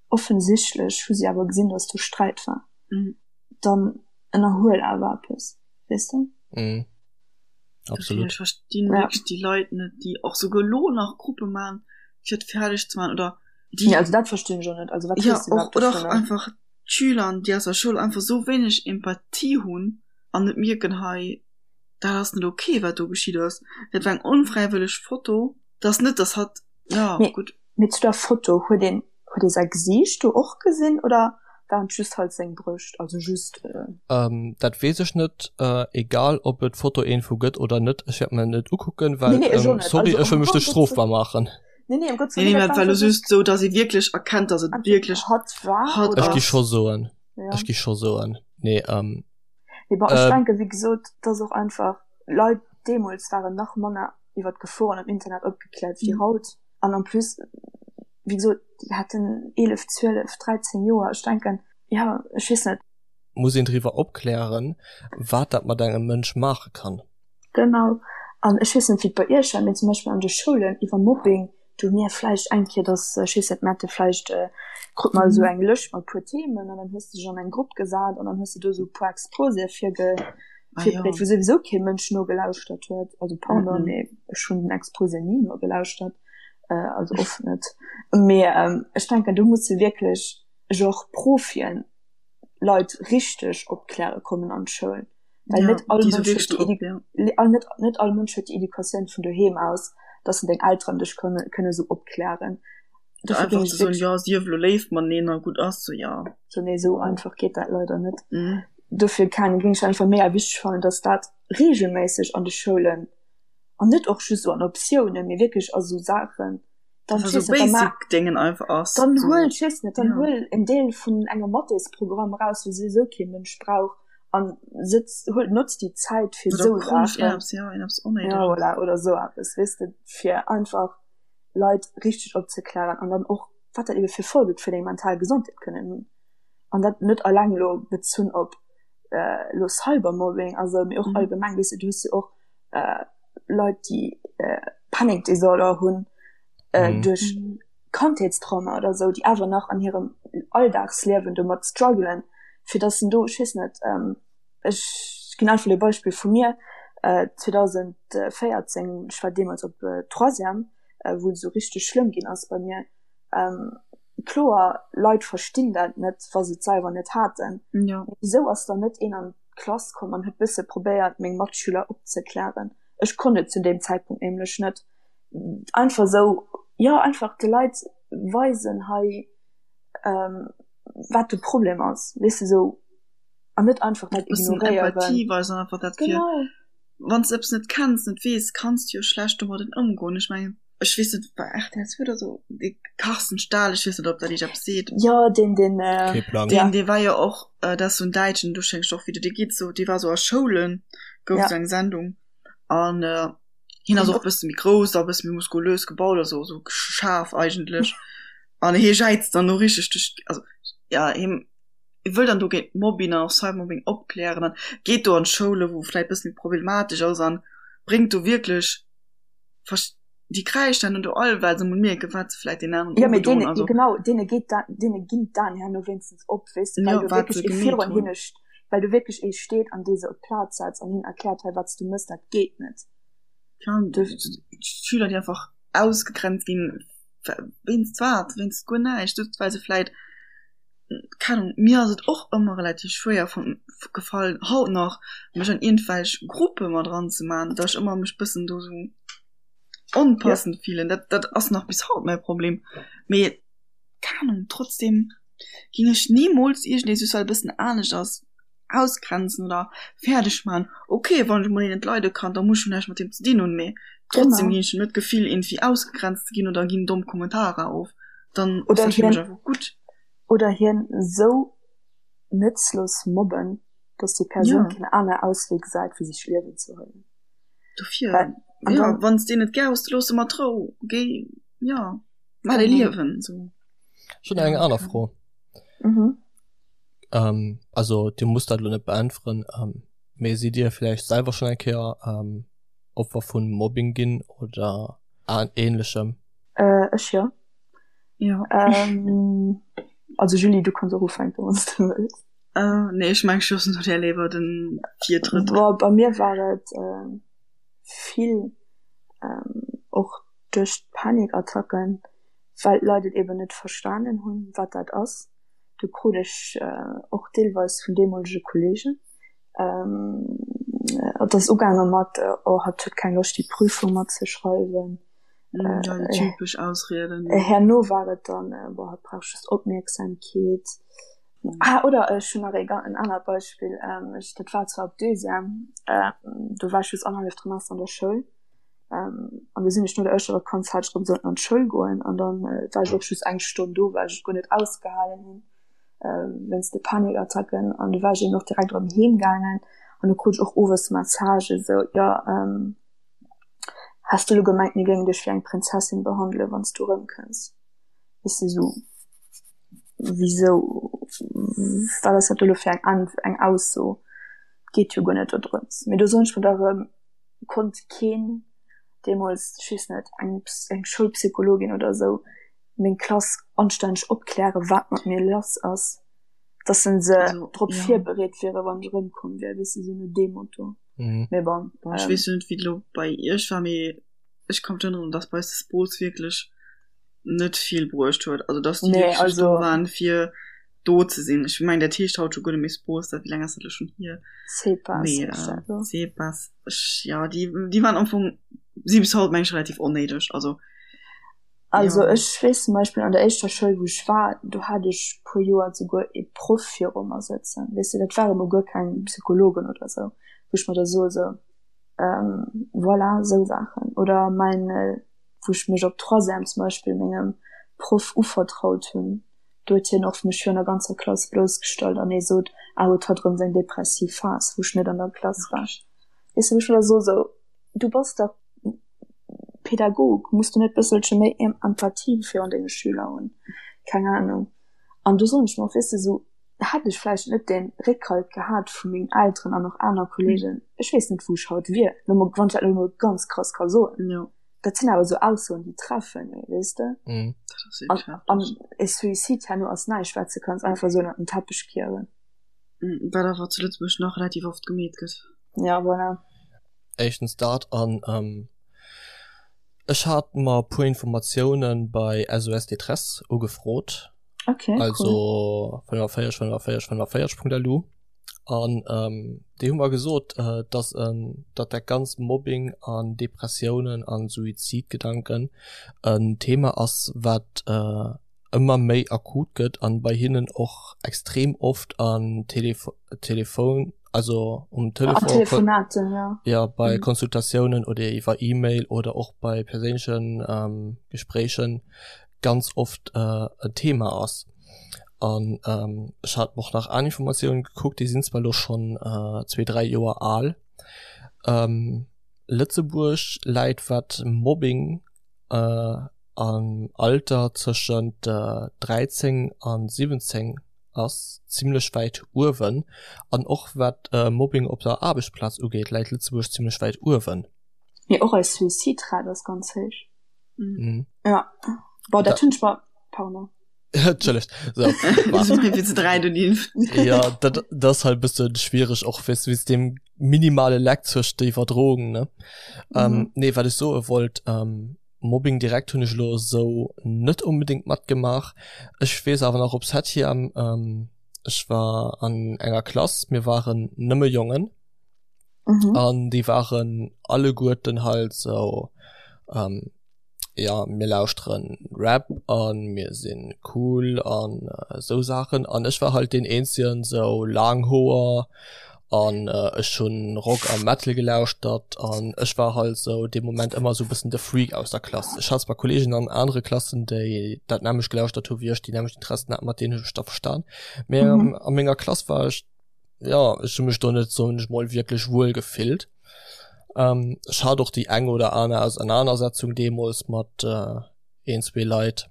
Offensichtlech hu si awer gesinn, dass do Sträit war. Dann ënnerhuel awer eppes, weess de? Mhm. Absolut. Ech verstinn ja. wierklech déi Leit net, déi och souguer lo nach Gruppe man, fir et fäerdeg ze man oder déi. Nee, also dat verstinn ech och net. Also wat ja, och, oder och einfach d'Schüler, déi aus der Schoul einfach sou wéineg Empathie hunn an net mierken, hei dat ass net okay, wat do geschitt ass. Dat war eng onfräiwëlleg Foto. Dat ass net, dass hatt ja, mee, gutt. Mee zu der Foto, huet een huet ee säi Gesiicht do och gesinn oder waren et just halt seng Brëscht? Also just. Ähm, dat weess ech net. Äh, egal ob et Fotoinfo gëtt oder net, ech wäert mer net ukucken, well, nee, nee, ech ähm, sorry, also, ech wëll mech net strofbar maachen. Nee, nee, um Gottes Willen. Nee, nee, dat war just sou, dass ee wierklech erkennt, dass et wierklech hatt war. Hatt ass. Ech gi scho soen. Ja. Ech gi scho soen. Nee, ähm. Mee bon, ech ähm, denken, wéi gesot, dass och einfach Leit deemools waren nach manner iwwer d'Geforen am Internet opgekläert wéi haut. An en plus, wéi gesot, déi haten 11, 12, 13 Joer. Ech denken, jo, ech weess net. Muss een driwwer opklären, wat dat mat engem Mënsch maache kann. Genau. An ech weess net, wéi et bei Iech war, mee zum Beispill an de Schoulen iwwer Mobbing, do hu mir vläicht eng Kéier, dass, ech weess net, mir hate vläicht, krut mer esou eng Lëscht mat e puer Themen an dann hues de dech an eng Grupp gesat an dann hues de do esou e puer Exposéë virge virbereet, wou souwisou kee Mënsch nogelauschtert huet. Also pardon, mee ech hunn den Exposé ni nogelauschtert, also oft net. Mee ech denken, do musse wierklech genre Profien Leit richteg opkläre kommen an d'Schoul. Well ja, net all Mënsch huet déi ja. net, net all Mënsch huet déi Educatioun vun doheem aus, dass en deng Elteren dech kënne, kënne sou opklären. Dofir géing ech soen, ja, sief lo léif mateneen a gutt ass, so ja. So nee, sou einfach geet dat leider net. Mhm. Dofir kann géing ech einfach mega wichteg fannen, dass dat regelméisseg an de Schoulen an net och just sou an Optiounen, mee wierklech a sou Saachen dann so basic Dingen einfach ass. Dann huel, ech weess net, dann ja. huel en Deel vun engem Mathésprogramm raus, wou souwisou kee Mënsch brauch an sëtz, huel, notz déi Zäit fir sou Saachen. Ja, ja, voilà, oder sou eppes, weess de, fir einfach Leit richteg opzeklären an dann och, wat dat ebe fir Folge fir deng mental Gesondheet kënnen hunn. An dat net alleng lo bezunn op äh, lo Cybermobbing, also mee och mhm. allgemeng, weess de, du hues jo och äh, Leit déi äh, Panic Disorder hunn äh, mhm. duerch Kandheetstrauma oder sou, déi awer nach an hirem Alldagsliewen domat struggelen, fir dass en do, ech weess net, ähm, ech ginn einfach e Beispill vu mir, äh, 2014, ech war deemools op äh, Troisième, äh, wou et esou richteg schlëmm ginn ass bei mir, ähm, kloer, Leit verstinn dat net, wa se et selwer net haten. Ja. Wisou ass dann net een an d'Klass komm an huet bësse probéiert meng Matschüler opzeklären. Ech konnt et zu deem Zäitpunkt nämlech net. Einfach sou, jo einfach de Leit weisen hei wat de Problem ass, weess de sou an net einfach dat ignoréieren. Empathie weisen einfach dat fir wann s de eppes net kenns, net weess, kanns de jo schlecht domadden ëmgoen. Ech mengen. Ech weess net, bei rtl 2 oder sou, dee Carsten Stahl, ech weess net, ob dat iech eppes seet. Jo, deen, deen, äh, Kee Plang. Deen, dee war jo och, dat ass sou en Däitschen, do schéngt och wéi de dee geet sou, dee war sou a Schoulen, gouf Ja. sou eng Sendung an hien ass och e bësse méi grouss a e bësse méi muskulös gebaut, also sou schaarf eigentlech an hie jäizt dann do richteg duerch, also ja, hie wëll dann do géint Mobbing an och Cybermobbing opklären an geet do an d'Schoule wou vläit bësse méi problematesch ass an bréngt do wierklech déi kräischen dann do all, well se mol mierken, wat se vläit den aneren Ja, mee ugedoen deene, also. genau, deene geet da, deene ginn d'Aen herno wéinstens op, weess de, well Ja, do wat se wierklech ee gemeet virun hunn. hinne, well do wierklech ee steet an dee se op d'Plaz setzt an hinnen erkläert, hei, wat s du mëss, dat geet net. Ja, d'Schüler, déi einfach ausgegrenzt ginn, wéinst wat? Wéinst guer näischt, just well se vläit, keng Ahnung, mir ass et och ëmmer relativ schwéier vun gefall, haut nach, mech an iergendwelch Gruppe mat eranzemaachen, datt ech ëmmer mech bëssen do sou onpassend fillen. Dat, dat ass nach bis haut mäi Problem. Mee keng Ahnung, trotzdem ging ech nimools iergendee just well e bëssen anescht ass ausgrenzen oder fäerdeg man. Okay, wann ech mol een net leide kann, da muss ech jo näischt mat deem ze dinn hunn, mee trotzdem Genau. ginn ech him net d'Gefill iergendwéi ausgegrenzt ze ginn oder ginn domm Kommentarer of. Dann ass Oder dat fir mech hien, einfach gutt. oder hien esou nëtzlos mobben, dass déi Persoun Ja. keen aner Auswee gesäit wéi sech d'Liewen ze huelen. Dofir, Well, an ja, dann, wann s deen net gär hues, da looss e mat Rou. Géi, ja, maach däi genau. Liewen esou. Ech hunn nach eng Ja, aner keine Fro. Mhm. Ähm, also Dir musst dat elo net beäntweren, ähm, mee sidd Dir vläicht selwer schonn eng Kéier ähm, Opfer vun Mobbing ginn oder Ähnlechem? Äh, ech jo. Ja. Ähm, also Julie, du kanns och ufänken, wann s du wëlls. Äh, nee, ech mengen, ech loossen der léiwer den Virtrëtt. Bon, bei mir war et äh, vill ähm, och duerch d'Panikattacken, well d'Leit et eben net verstanen hunn, wat dat ass. Do krut ech och deelweis vun deemolege Kolleegen, et ass ugaange mat, oh hatt huet keng Loscht déi Prüfung matzeschreiwen. Ja, déi typesch Ausrieden. Herno war et dann, boah hatt brauch just Opmierksamkeet. Ah, oder ech hunn nach en anert Beispill, ech, dat war zwar op Deuxième, do war ech just annerhalleft Trimester an der Schoul. An du sinn ech no der éischter Vakanz hat ech erëm sollten an d'Schoul goen an dann war ech och just eng Stonn do, well ech et guer net ausgehalen hunn wéinst de Panikattacken. An du war ech eben och direkt erëm heem gaangen an du krut ech och owes Messagë sou, jo has du elo gemengt mir géingen dech wéi eng Prinzessin behandelen, wann s du erëmkënns? Weess de sou, wisou, wat ass dat do elo fir eng eng Ausso? Geet jo guer net dodrëms. Mee do soen ech mer da erëm, konnt keen deemools, ech weess net, eng eng Schoulpsychologin oder esou meng Klass anstänneg opklären, wat mat mir lass ass, dass se se Also, drop ja. virbereet wieren, wann ech erëmkomm wier, weess de, sou no deem Motto. Mhm. Mee bon, Bon, ech ähm, weess jo net, wéi et elo bei iech war, mee ech ka mech erënneren, dass bei eis de Sport wierklech net vill bruecht huet. Also, dass déi nee, wierklech just do also waren, fir do ze sinn. Ech mengen, dat heescht haut scho guer net méi Sport, dat wéi laang ass dat elo schonn hier? CEPAS Mee heescht äh, dat elo. CEPAS, ech, ja, déi, déi waren am Fong, si bis haut, meng ech, relativ onnéideg. Also, Also ja. ech weess zum Beispill an der éischter Schoul wou ech war, do hat ech puer Joer souguer ee Proff viru mer sëtzen, weess de, dat ware mol guer keng Psychologen oder sou, wou ech mer da soe sou, ähm, voilà, sou Saachen. Oder mäin, wou ech mech op Troisième zum Beispill mengem Proff uvertraut hunn, Do huet hien och mech virun der ganzer Klass bloussgestallt an hie sot, ah huet hatt erëm seng depressiv Phas, wou ech net an der Klass war. Weess de, wou ech mer da soe sou, du bass dach Pädagog, muss du net bësselche méi Empathie virun denge Schüler hunn? Keng Ahnung. An do soen ech mer och, weess de, sou hätt ech vläicht net dee Réckhalt gehat vu mengen Elteren an och aner Kollegen, ech weess net wou ech haut wier, lo mol, wann ech dat lo mol ganz krass ka soen. Dat sinn awer sou Aussoen, déi treffen ee, weess de? Mm. Dat ass An, wierklech heftig. an e Suicide herno ass näischt, wat s de kanns einfach sou ënnert den Teppech kieren. Mm, Wat awer zu Lëtzebuerg nach relativ oft gemeet gëtt. Ja, voilà. Éischtens dat an ähm, ech hat mer e puer Informatiounen bei SOS Détresse ugefrot. Okay, cool. Also 45 45 45.lu. An déi hu mer gesot, dass datt dat ganzt Mobbing an Depressiounen an Suizidgedanken en Thema ass, wat. ëmmer méi akut gëtt an bei hinnen och extrem oft an Telefo Telefon also um Telefon Telefonaten, ja. ja bei mhm. Konsultatiounen oder iwwer E-Mail oder och bei perséinlechen ähm, Gespréichen ganz oft äh, en Thema ass. An ähm, ech hat och nach aner Informatiounen gekuckt, déi sinn zwar lo schon äh, zwee, dräi Joer al. Ähm, Lëtzebuerg läit wat Mobbing äh, am Alter tëschent 13 an 17 ass zimlech wäit uewen an och wat Mobbing op der Aarbechtsplaz ugeet läit Lëtzebuerg zimlech wäit uewen. Mee och eis Suicidrate ass ganz héich. Mhm. Ja bon dat hunn ech mer, pardon. Entschëllegt. So, ja dat, dat ass halt bëssen schwiereg och weess wéinst deem minimale Leck zwëscht der Iwwerdroung ne. Mhm. Ähm, nee wat ech soe wollt ähm, Mobbing direkt hunn ech elo esou net onbedéngt matgemaach. Ech weess awer nach op Septième, ähm, ech war an enger Klass, mir waren nëmme Jongen mhm. an déi waren alleguerten halt sou ähm, ja mir lauschteren Rap an mir sinn cool an äh, sou Saachen an ech war halt den eenzegen sou laang Hoer an äh, ech hunn Rock a Metal gelauschtert an ech war halt sou dee Moment ëmmer sou bëssen de Freak aus der Klass. Ech hat zwar Kollegen an anere Klassen, déi dat nämmlecht gelauschtert hu wéi ech, déi nämmlecht Interessen haten, mat deenen hunn ech mech da verstan. Mee mhm. a menger Klass war ech ja ech hu mech do net soen ech mol wierklech wuel gefillt. Ähm, ech hat och déi eng oder aner Ausenanersetzung deemools mat äh, een, zwee Leit.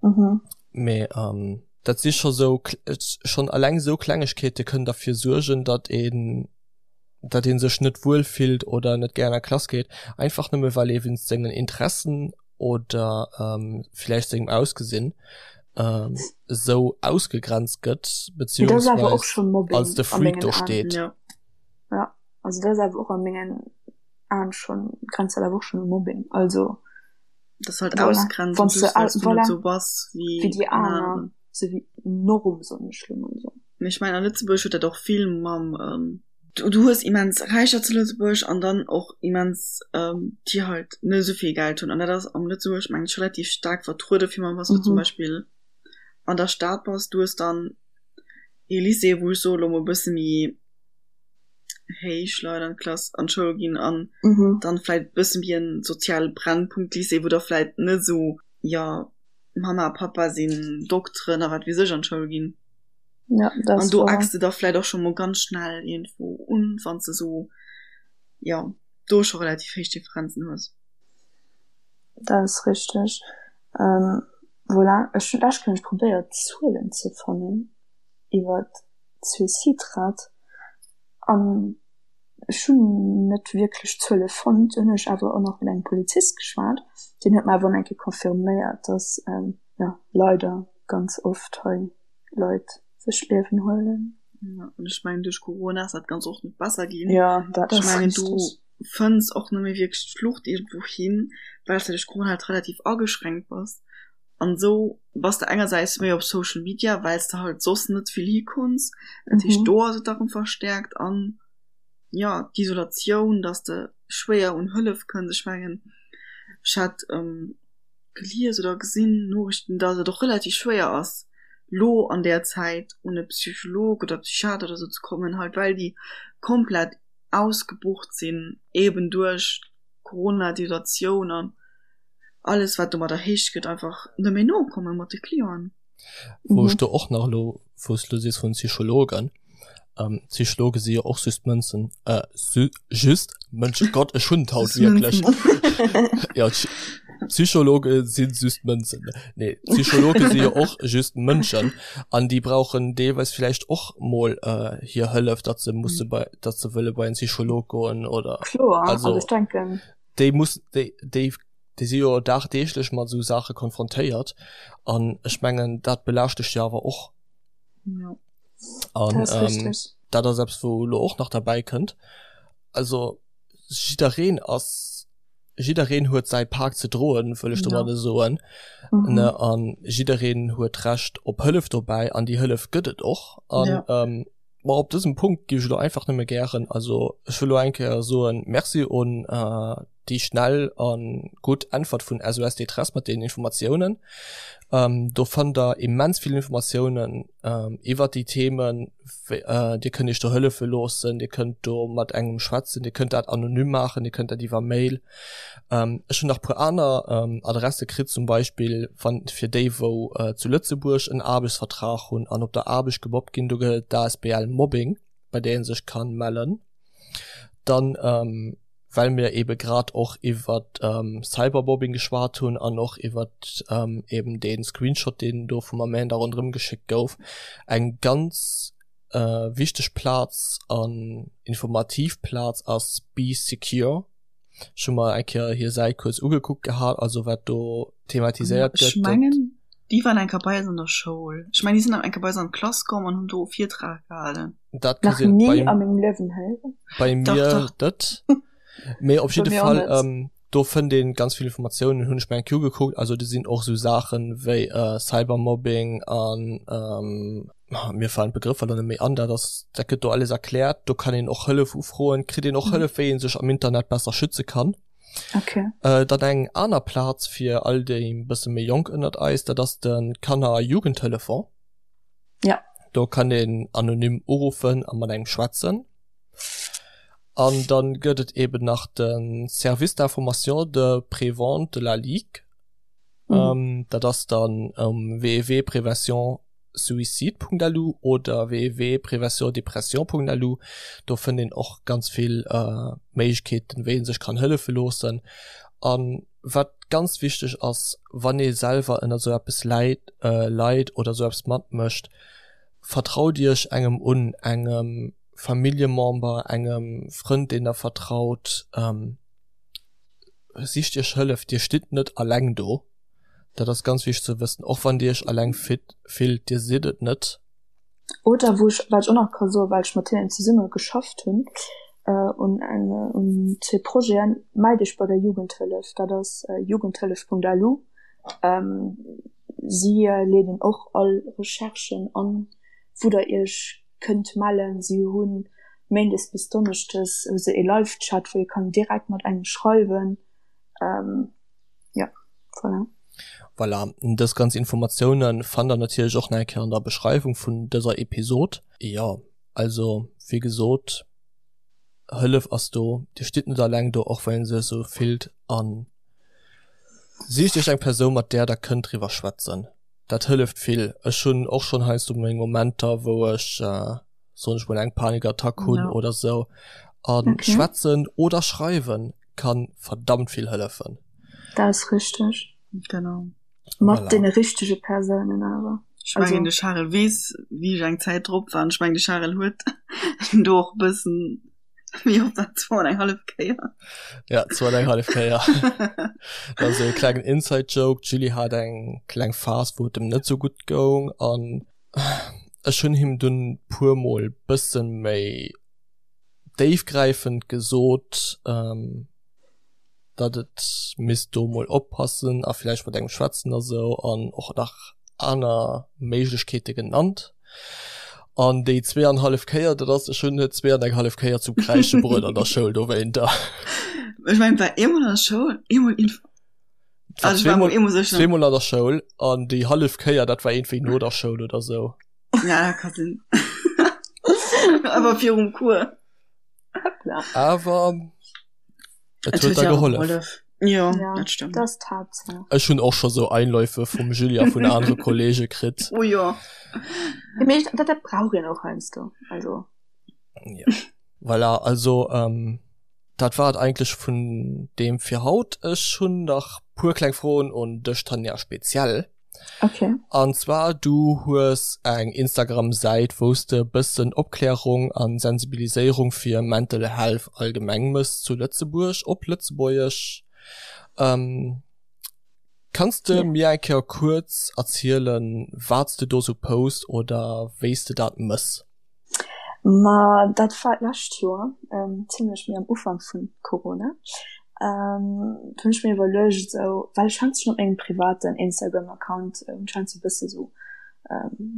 Mhm. Mee ähm, dat si scho sou schonn alleng sou Klengegkeete kënnen derfir suergen, datt een datt een sech net wuel fillt oder net gär an der Klass geet, einfach nëmme well ee wéinst sengen Interessen oder ähm, villäicht sengem Ausgesinn ähm, sou ausgegrenzt gëtt, beziehungsweise als de Freak do steet. Ja. ja, also dat ass awer och a mengen Aen schonn, grenzt dat awer och schonn u Mobbing, also. Das halt voilà. ausgrenzen, Wann du, weil's du voilà. so bass wéi, wéi déi aner, so wéi Norm soen ech lo mol so. Mee ech mengen a Lëtzebuerg huet dat och vill mam ähm, du, du hues immens Räicher zu Lëtzebuerg an dann och immens ähm, déi halt net esou vill Geld hunn an dat ass am Lëtzebuerg mengen ech relativ staark vertruede fir mal wann du zum mhm. Beispill an der Stad bass, du hues dann ee Lycée wou ech soe lo mol bësse méi héich Leit an d'Klass an d'Schoul ginn an mhm. dann vläit bëssen wéi en soziale Brennpunkt Lycée, wou da vläit net esou ja Mama a Papa sinn Dokteren a wat weess ech an d'Schoul ginn. Ja, das an do eckst du da vläit och scho mol ganz schnell iergendwou un, wann s de sou ja do scho relativ héich Differenzen hues. Dat ass richteg. Ähm, voilà, ech hunn lech kënne probéiert Zuelen ze fannen iwwer d'Suicidrate an ech hunn net wierklech Zuele fonnt. Dunn hunn ech awer och nach mat engem Polizist geschwat, deen huet mer awer och nach eng Kéier confirméiert, dass jo leider ganz oft hei Leit sech d'Liewen huelen. Jo, an ech mengen duerch Corona ass dat Ganzt och net besser ginn. Jo, dat ass richteg. Ech mengen du fënns och net méi wierklech d'Flucht iergendwou hin, well s de duerch Corona halt relativ ageschränkt bass. An esou bass de engersäits méi op Social Media, well s de halt soss net vill hikonns. Dat heescht, do ass et da rëm verstäerkt. An jo, d'Isolatioun, dass de schwéier un Hëllef kënns. Ech mengen, ech hat gelies oder gesinn, Noriichten, dass et och relativ schwéier ass, lo an där Zäit un e Psycholog oder Psychiater oder sou ze kommen, halt well déi komplett ausgebucht sinn, eben duerch Corona, d'Isolatioun an. alles wat domadder héich gëtt einfach net méi nokomme mat de Clienten. Wou ech do och nach elo, wou s de elo sees vun Psychologen, ähm, Psychologe si jo och just Mënzen, äh, just Mënschen, Gott, ech hunn et haut wierklech. Ja, Psychologe si just Mënzen. Nee, Psychologe si jo och just Mënschen an déi brauchen deelweis vläicht och mol äh, hir Hëllef, datt se musse bei, datt se wëlle bei en Psycholog goen oder. Kloer, also ech denken. déi muss déi déi déi si jo dagdeeglech mat esou Saache konfrontéiert an ech mengen dat belaascht dech jo awer och. Ja. An dat ass ähm, richtig. dat ass eppes wou elo och nach derbäi kënnt. Also jiddereen ass jiddereen huet säi Pak ze droen, wëll ech Ja. domadde soen Mhm. ne an jiddereen huet d'Recht op Hëllef dobäi an déi Hëllef gëtt et och an Ja. ähm, Ma op dësem Punkt géif ech elo einfach nëmme gären, also ech wëll elo eng Kéier soen Merci un. déi schnell a gutt Äntwert vun SOS Détresse mat deenen Informatiounen. Ähm, do fannt der immens vill Informatiounen ähm, iwwer déi Themen. Äh, dir kënnt iech do hëllefe loossen, dir kënnt do mat engem schwätzen, dir kënnt dat anonym maachen, dir kënnt dat iwwer Mail. Ähm, ech hunn nach puer aner ähm, Adresse kritt, zum Beispill wann fir déi wou äh, zu Lëtzebuerg en Aarbechtsvertrag hunn an op der Aarbecht gemobbt ginn, do gëtt et d'ASBL Mobbing, bei där ee sech kann mellen. Dann ähm, well mir ebe grad och iwwer ähm, Cybermobbing geschwat hunn an och iwwer ähm, eben den Screenshot, deen do vum Amanda ronderëm geschéckt gouf, eng ganz äh, wichteg Plaz an informativ Plaz ass Bee Secure. Ech hu mer eng Kéier hir Säit kuerz ugekuckt gehat, also wat do thematiséiert gëtt. Ech mengen, déi waren eng Kéier bei eis an der Schoul. Ech mengen, déi sinn eng Kéier bei eis an d'Klass komm an hunn do e Virtrag gehalen. Dat ka Nach sinn. ni Bei, a mengem Liewen héieren. bei Dach, mir dach. net. Mee op Bei jidde mir och Fall, net. ähm, do fënnt een ganz vill Informatiounen, hunn ech mer eng Kéier ugekuckt. Also do sinn och esou Saachen wéi äh, Cybermobbing an ähm, mir falen d'Begrëffer lo net méi an, dat ass, dat gëtt do alles erkläert. Do kann een och Hëllef ufroen, kritt een och Mhm. Hëllef, wéi een sech am Internet besser schütze kann. Okay. Äh, dann eng aner Plaz fir all déi e bësse méi jonk ënnert eis, dat ass de Kanner a Jugendtelefon. Ja. Do kann een anonym uruffen a mat engem schwätzen. An dann gëtt et eben nach de Service d'information de prévente de la Ligue. Mhm. Ähm, dat ass dann um www.préventionsuicide.lu oder www.préventiondepression.lu. Do fënnt een och ganz vill äh, Méiglechkeeten, wéi een sech kann hëllefe loossen. An wat ganz wichteg ass, wann ee selwer ënner sou eppes läit, äh, leit oder sou eppes matmécht, vertraut iech engem un, engem Familljemember, engem Frënd, deen der vertraut. Ähm, sicht iech Hëllef, dir stitt net alleng do. Dat ass ganz wichteg ze wëssen, och wann dir iech alleng fit, fillt, dir sidd et net. Oder wou ech, wat ech och nach ka soen, well ech mat hinnen zesumme geschafft hunn un eng, un zwee Projeten, Mellt iech bei der Jugendhëllef, dat ass jugendhëllef.lu. Si leeden och all Recherchen an, wou der iech kënnt mellen. Si hu méindes bis donneschdes hu se ee Live-Chat, wou ee kann direkt mat engem schreiwen. Jo, voilà. Voilà, dës ganz Informatioune fannt der natierlech och nach eng Kéier an der Beschreiwung vun dëser Episod. Jo, also wéi gesot, Hëllef ass do, Dir stitt net alleng do, och wann ee sech esou fillt. A sicht Iech eng Persoun, mat där der kënnt driwwer schwätzen. Dat hëlleft vill. Ech hunn och schonn heiansdo meng Momenter, wou ech, soen ech mol, eng Panikattack hunn oder esou. A schwätzen oder schreiwen kann verdammt vill hëllefen. Dat ass richteg. Genau. Mat voilà. deene richtege Persounen awer. Ech mengen de Charel weess, wéi ech eng Zäit drop war. Ech mengen de Charel huet do och e bëssen, wéi oft dat zwou an eng hallef Kéier. Ja, zwou an eng hallef Kéier. Dat ass e klengen Inside-Joke. D'Julie hat eng kleng Phas, wou et em net sou gutt goung an ech hunn him dunn puer mol bësse méi déifgräifend gesot, ähm, datt et misst do mol oppassen a vläicht mat engem schwätzen a sou an och nach aner Méiglechkeete genannt. An déi zweeanhallef Kéier, dat ass, ech hunn et zwee an eng hallef Kéier zum Kräische bruet an der Schoul dowéinter. Ech mengen, et war eemol an der Schoul, eemol inf-, Et war also ech war mol zweemol, eemol sécher. zweemol an der Schoul an déi hallef Kéier, dat war iergendwéi no der Schoul oder sou. Ja, dat ka sinn. Awer virum Cours. Hoppla. Awer et huet da gehollef. Ja, ja, dat stëmmt. Dat ass d'Haaptsaach. Ech hunn och scho sou Einläufe vum Julia vun anere Kollege kritt. Oh jo. Ja, mee dat, dat brauch een och heiansdo. Also. Ja. Voilà, also ähm, dat war et eigentlech vun deem fir haut. Ech hunn nach puer kleng Froen un dech, Tanja, speziell. Okay. An zwar du hues eng Instagram Säit wous de bëssen Opklärung an Sensibiliséierung fir Mental Health allgemeng mëss zu Lëtzebuerg op Lëtzebuergesch. Ähm, kanns de Ja. mir eng Kéier kuerz erzielen wats de do sou post oder wéis de dat mëss? Ma dat war d'lescht Joer, zimlech méi am Ufank vun Corona. Do hunn ech mir iwwerluecht esou, well ech hat schonn op mengem privaten Instagram Account hunn ech heiansdo e bësse sou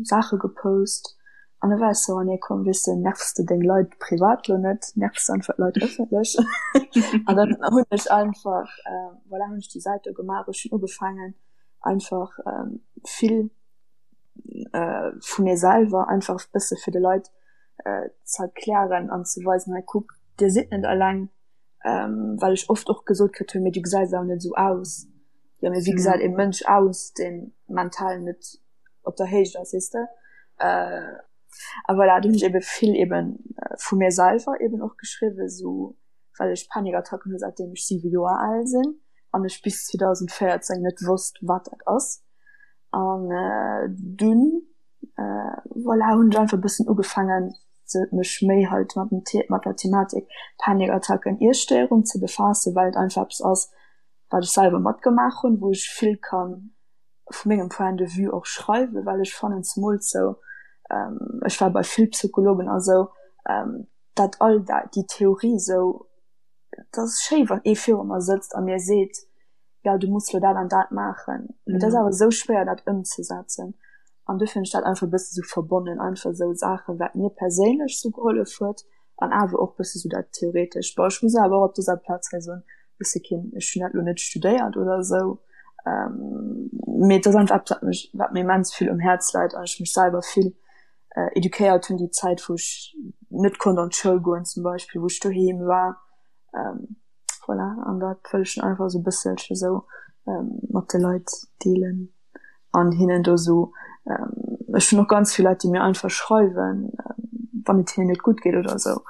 Saache gepost. An da war ech sou, ah nee komm, weess de, nervs de deng Leit privat lo net, nervs de einfach d'Leit ëffentlech. An dann hunn ech einfach, voilà, hunn ech déi Säit do gemaach. Ech hunn ugefaangen einfach vill vu mir selwer einfach e bësse fir de Leit ze erklären an ze weisen, hei kuck, dir sidd net eleng, well ech oft och gesot kritt hunn, mee du gesäis awer net esou aus. Jo, mee wéi gesäit e Mënsch aus, dee mental net op der Héicht ass, weess de? A voilà, do hunn ech ebe vill ebe vu mir selwer eben och geschriwwen, esou well ech Panikattacken hu säitdeem ech 7 Joer al sinn an ech bis 2014 net wosst, wat dat ass. An dunn, voilà, hunn ech einfach e bëssen ugefaangen, mech méi halt mat dem mat der Thematik Panikattacken, Iesstéierung ze befaassen, well et einfach eppes ass, wat ech selwer matgemaach hunn, wou ech vill kann vu mengem Point de vue och schreiwen, well ech fannen zemools sou, ech war bei vill Psychologen a sou, dat all dat déi Theorie sou, et ass schéi wann ee viru mer sëtzt a mir seet, jo du muss lo dat an dat maachen, mee et ass awer sou schwéier dat ëmzesetzen an duerfir hunn ech dat einfach e bësse sou verbonnen, einfach sou Saachen wat mir perséinlech sou gehollef huet an awer och bësse sou dat theoretesch. Bon ech muss awer och op dëser Plaz hei soen, ech si keen, ech hunn dat lo net studéiert oder esou, mee et ass einfach eppes wat mech, wat mir immens vill um Häerz läit an ech mech selwer vill eduquéiert hunn déi Zäit wou ech net konnt an d'Schoul goen zum Beispill, wou ech doheem war. Voilà, an dat wëll ech einfach esou e bësselche esou mat de Leit deelen an hinnen do esou, ech hunn och ganz vill Leit déi mir einfach schreiwen, wann et hinnen net gutt geet oder esou,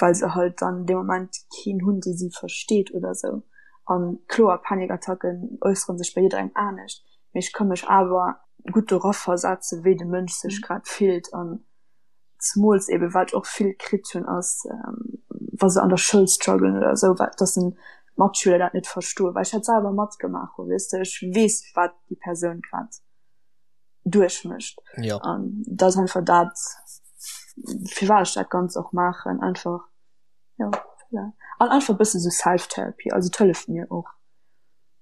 well se halt dann dee Moment keen hunn dee si versteet oder esou. An kloer, Panikattacken äussere sech bei jidderengem anescht, mee ech ka mech awer gutt do raversetzen, wéi de Mënsch sech grad fillt an zemools eben wat ech och vill kritt hunn ass wa se an der Schoul strugglen oder esou, wat dass en d'Matschüler dat net verstoen, well ech dat selwer matgemaach hunn, weess de, ech weess wat déi Persoun grad duerchmécht ja. an dat ass einfach dat firwat ech dat Ganzt och maachen, einfach ja, voilà. An einfach e bësse sou Self-Therapy, also et hëlleft mir och.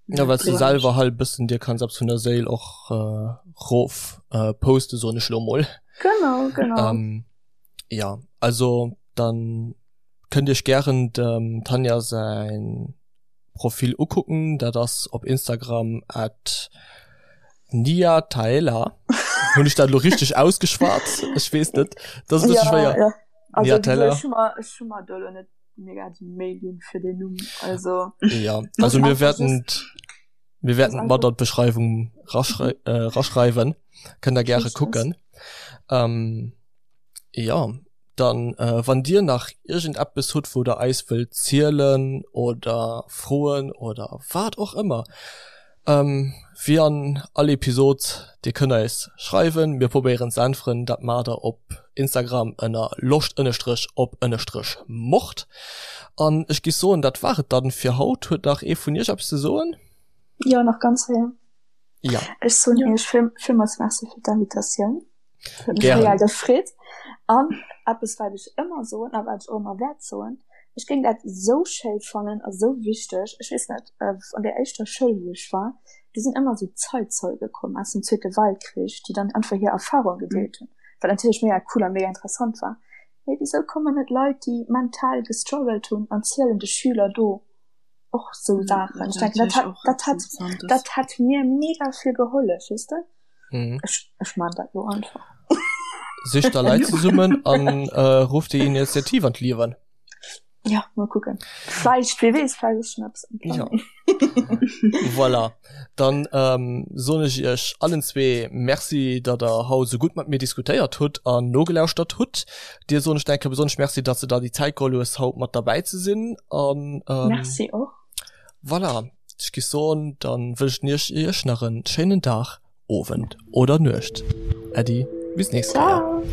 Ja, well du selwer halt bëssen dir kanns eppes vun der Séil och äh, rof äh, poste soen ech lo mol. Genau, genau. Ähm, ja, also dann kënnt iech gären dem Tanja säin Profil ukucken, dat ass op Instagram at niataela. Hunn ech dat lo richteg ausgeschwat? Ech weess net. Dat ass e bësse Ja, schwéier. ja. Also, Niatella. ech hu mer, ech hu mer do lo net mega déi Méi ginn fir den Numm. Also, Ja, also mir werden mir werden mat an d'Beschreiwung raschrei äh, raschreiwen. Kënnt der gäre kucken. Ähm, ja, dann äh, wann dir nach irgendeppes hutt, wou der eis wëllt zielen oder froen oder wat och ëmmer, ähm, wéi an all Episod, dir kënnt eis schreiwen, mir probéieren ze äntweren. Dat maacht der op Instagram ënner loscht ënnestrech op ënnestrech mord. An ech giff soen, dat war et dann fir haut. Huet nach ee vun iech eppes ze soen? Jo, nach ganz séier. Ja. Ech soen iech vill, villmools Merci fir d'Invitatioun. Huet mech Gären. reell gefreet. An eppes wat ech ëmmer soen a wat ech och ëmmer wäert soen, ech géing dat esou schéi fannen a sou wichteg, ech weess net, an där éischter Schoul wou ech war, do sinn ëmmer esou Zeitzeuge komm aus dem Zweete Weltkrich, déi dann einfach hir Erfahrung gedeelt hunn, wat natierlech mega cool a mega interessant war. Mee wisou kommen net Leit déi mental gestruggelt hunn an zielen de Schüler do och sou Saachen? Ech denken dat hätt dat hätt dat hätt mir mega vill gehollef, weess de? Mhm. Ech, ech man dat lo einfach. Sicht der Leit zesummen an äh, rufft déi Initiativ an d'Liewen. Ja, mal kucken. Vläicht, wie weess, vläicht ass schon eppes am Ja. Planning. Voilà. Dann ähm, soen ech iech allen zwee Merci, datt der haut esou gutt mat mir diskutéiert hutt an nogelauschtert hutt. Dir soen ech denke besonnesch Merci, datt s de der déi Zäit geholl hues, haut mat derbäi ze sinn. An ähm, Merci och. Voilà, ech gi soen, dann wënschen ech iech nach en schéinen Dag, Owend oder Nuecht. Äddi, bis nächst Kéier. Ciao.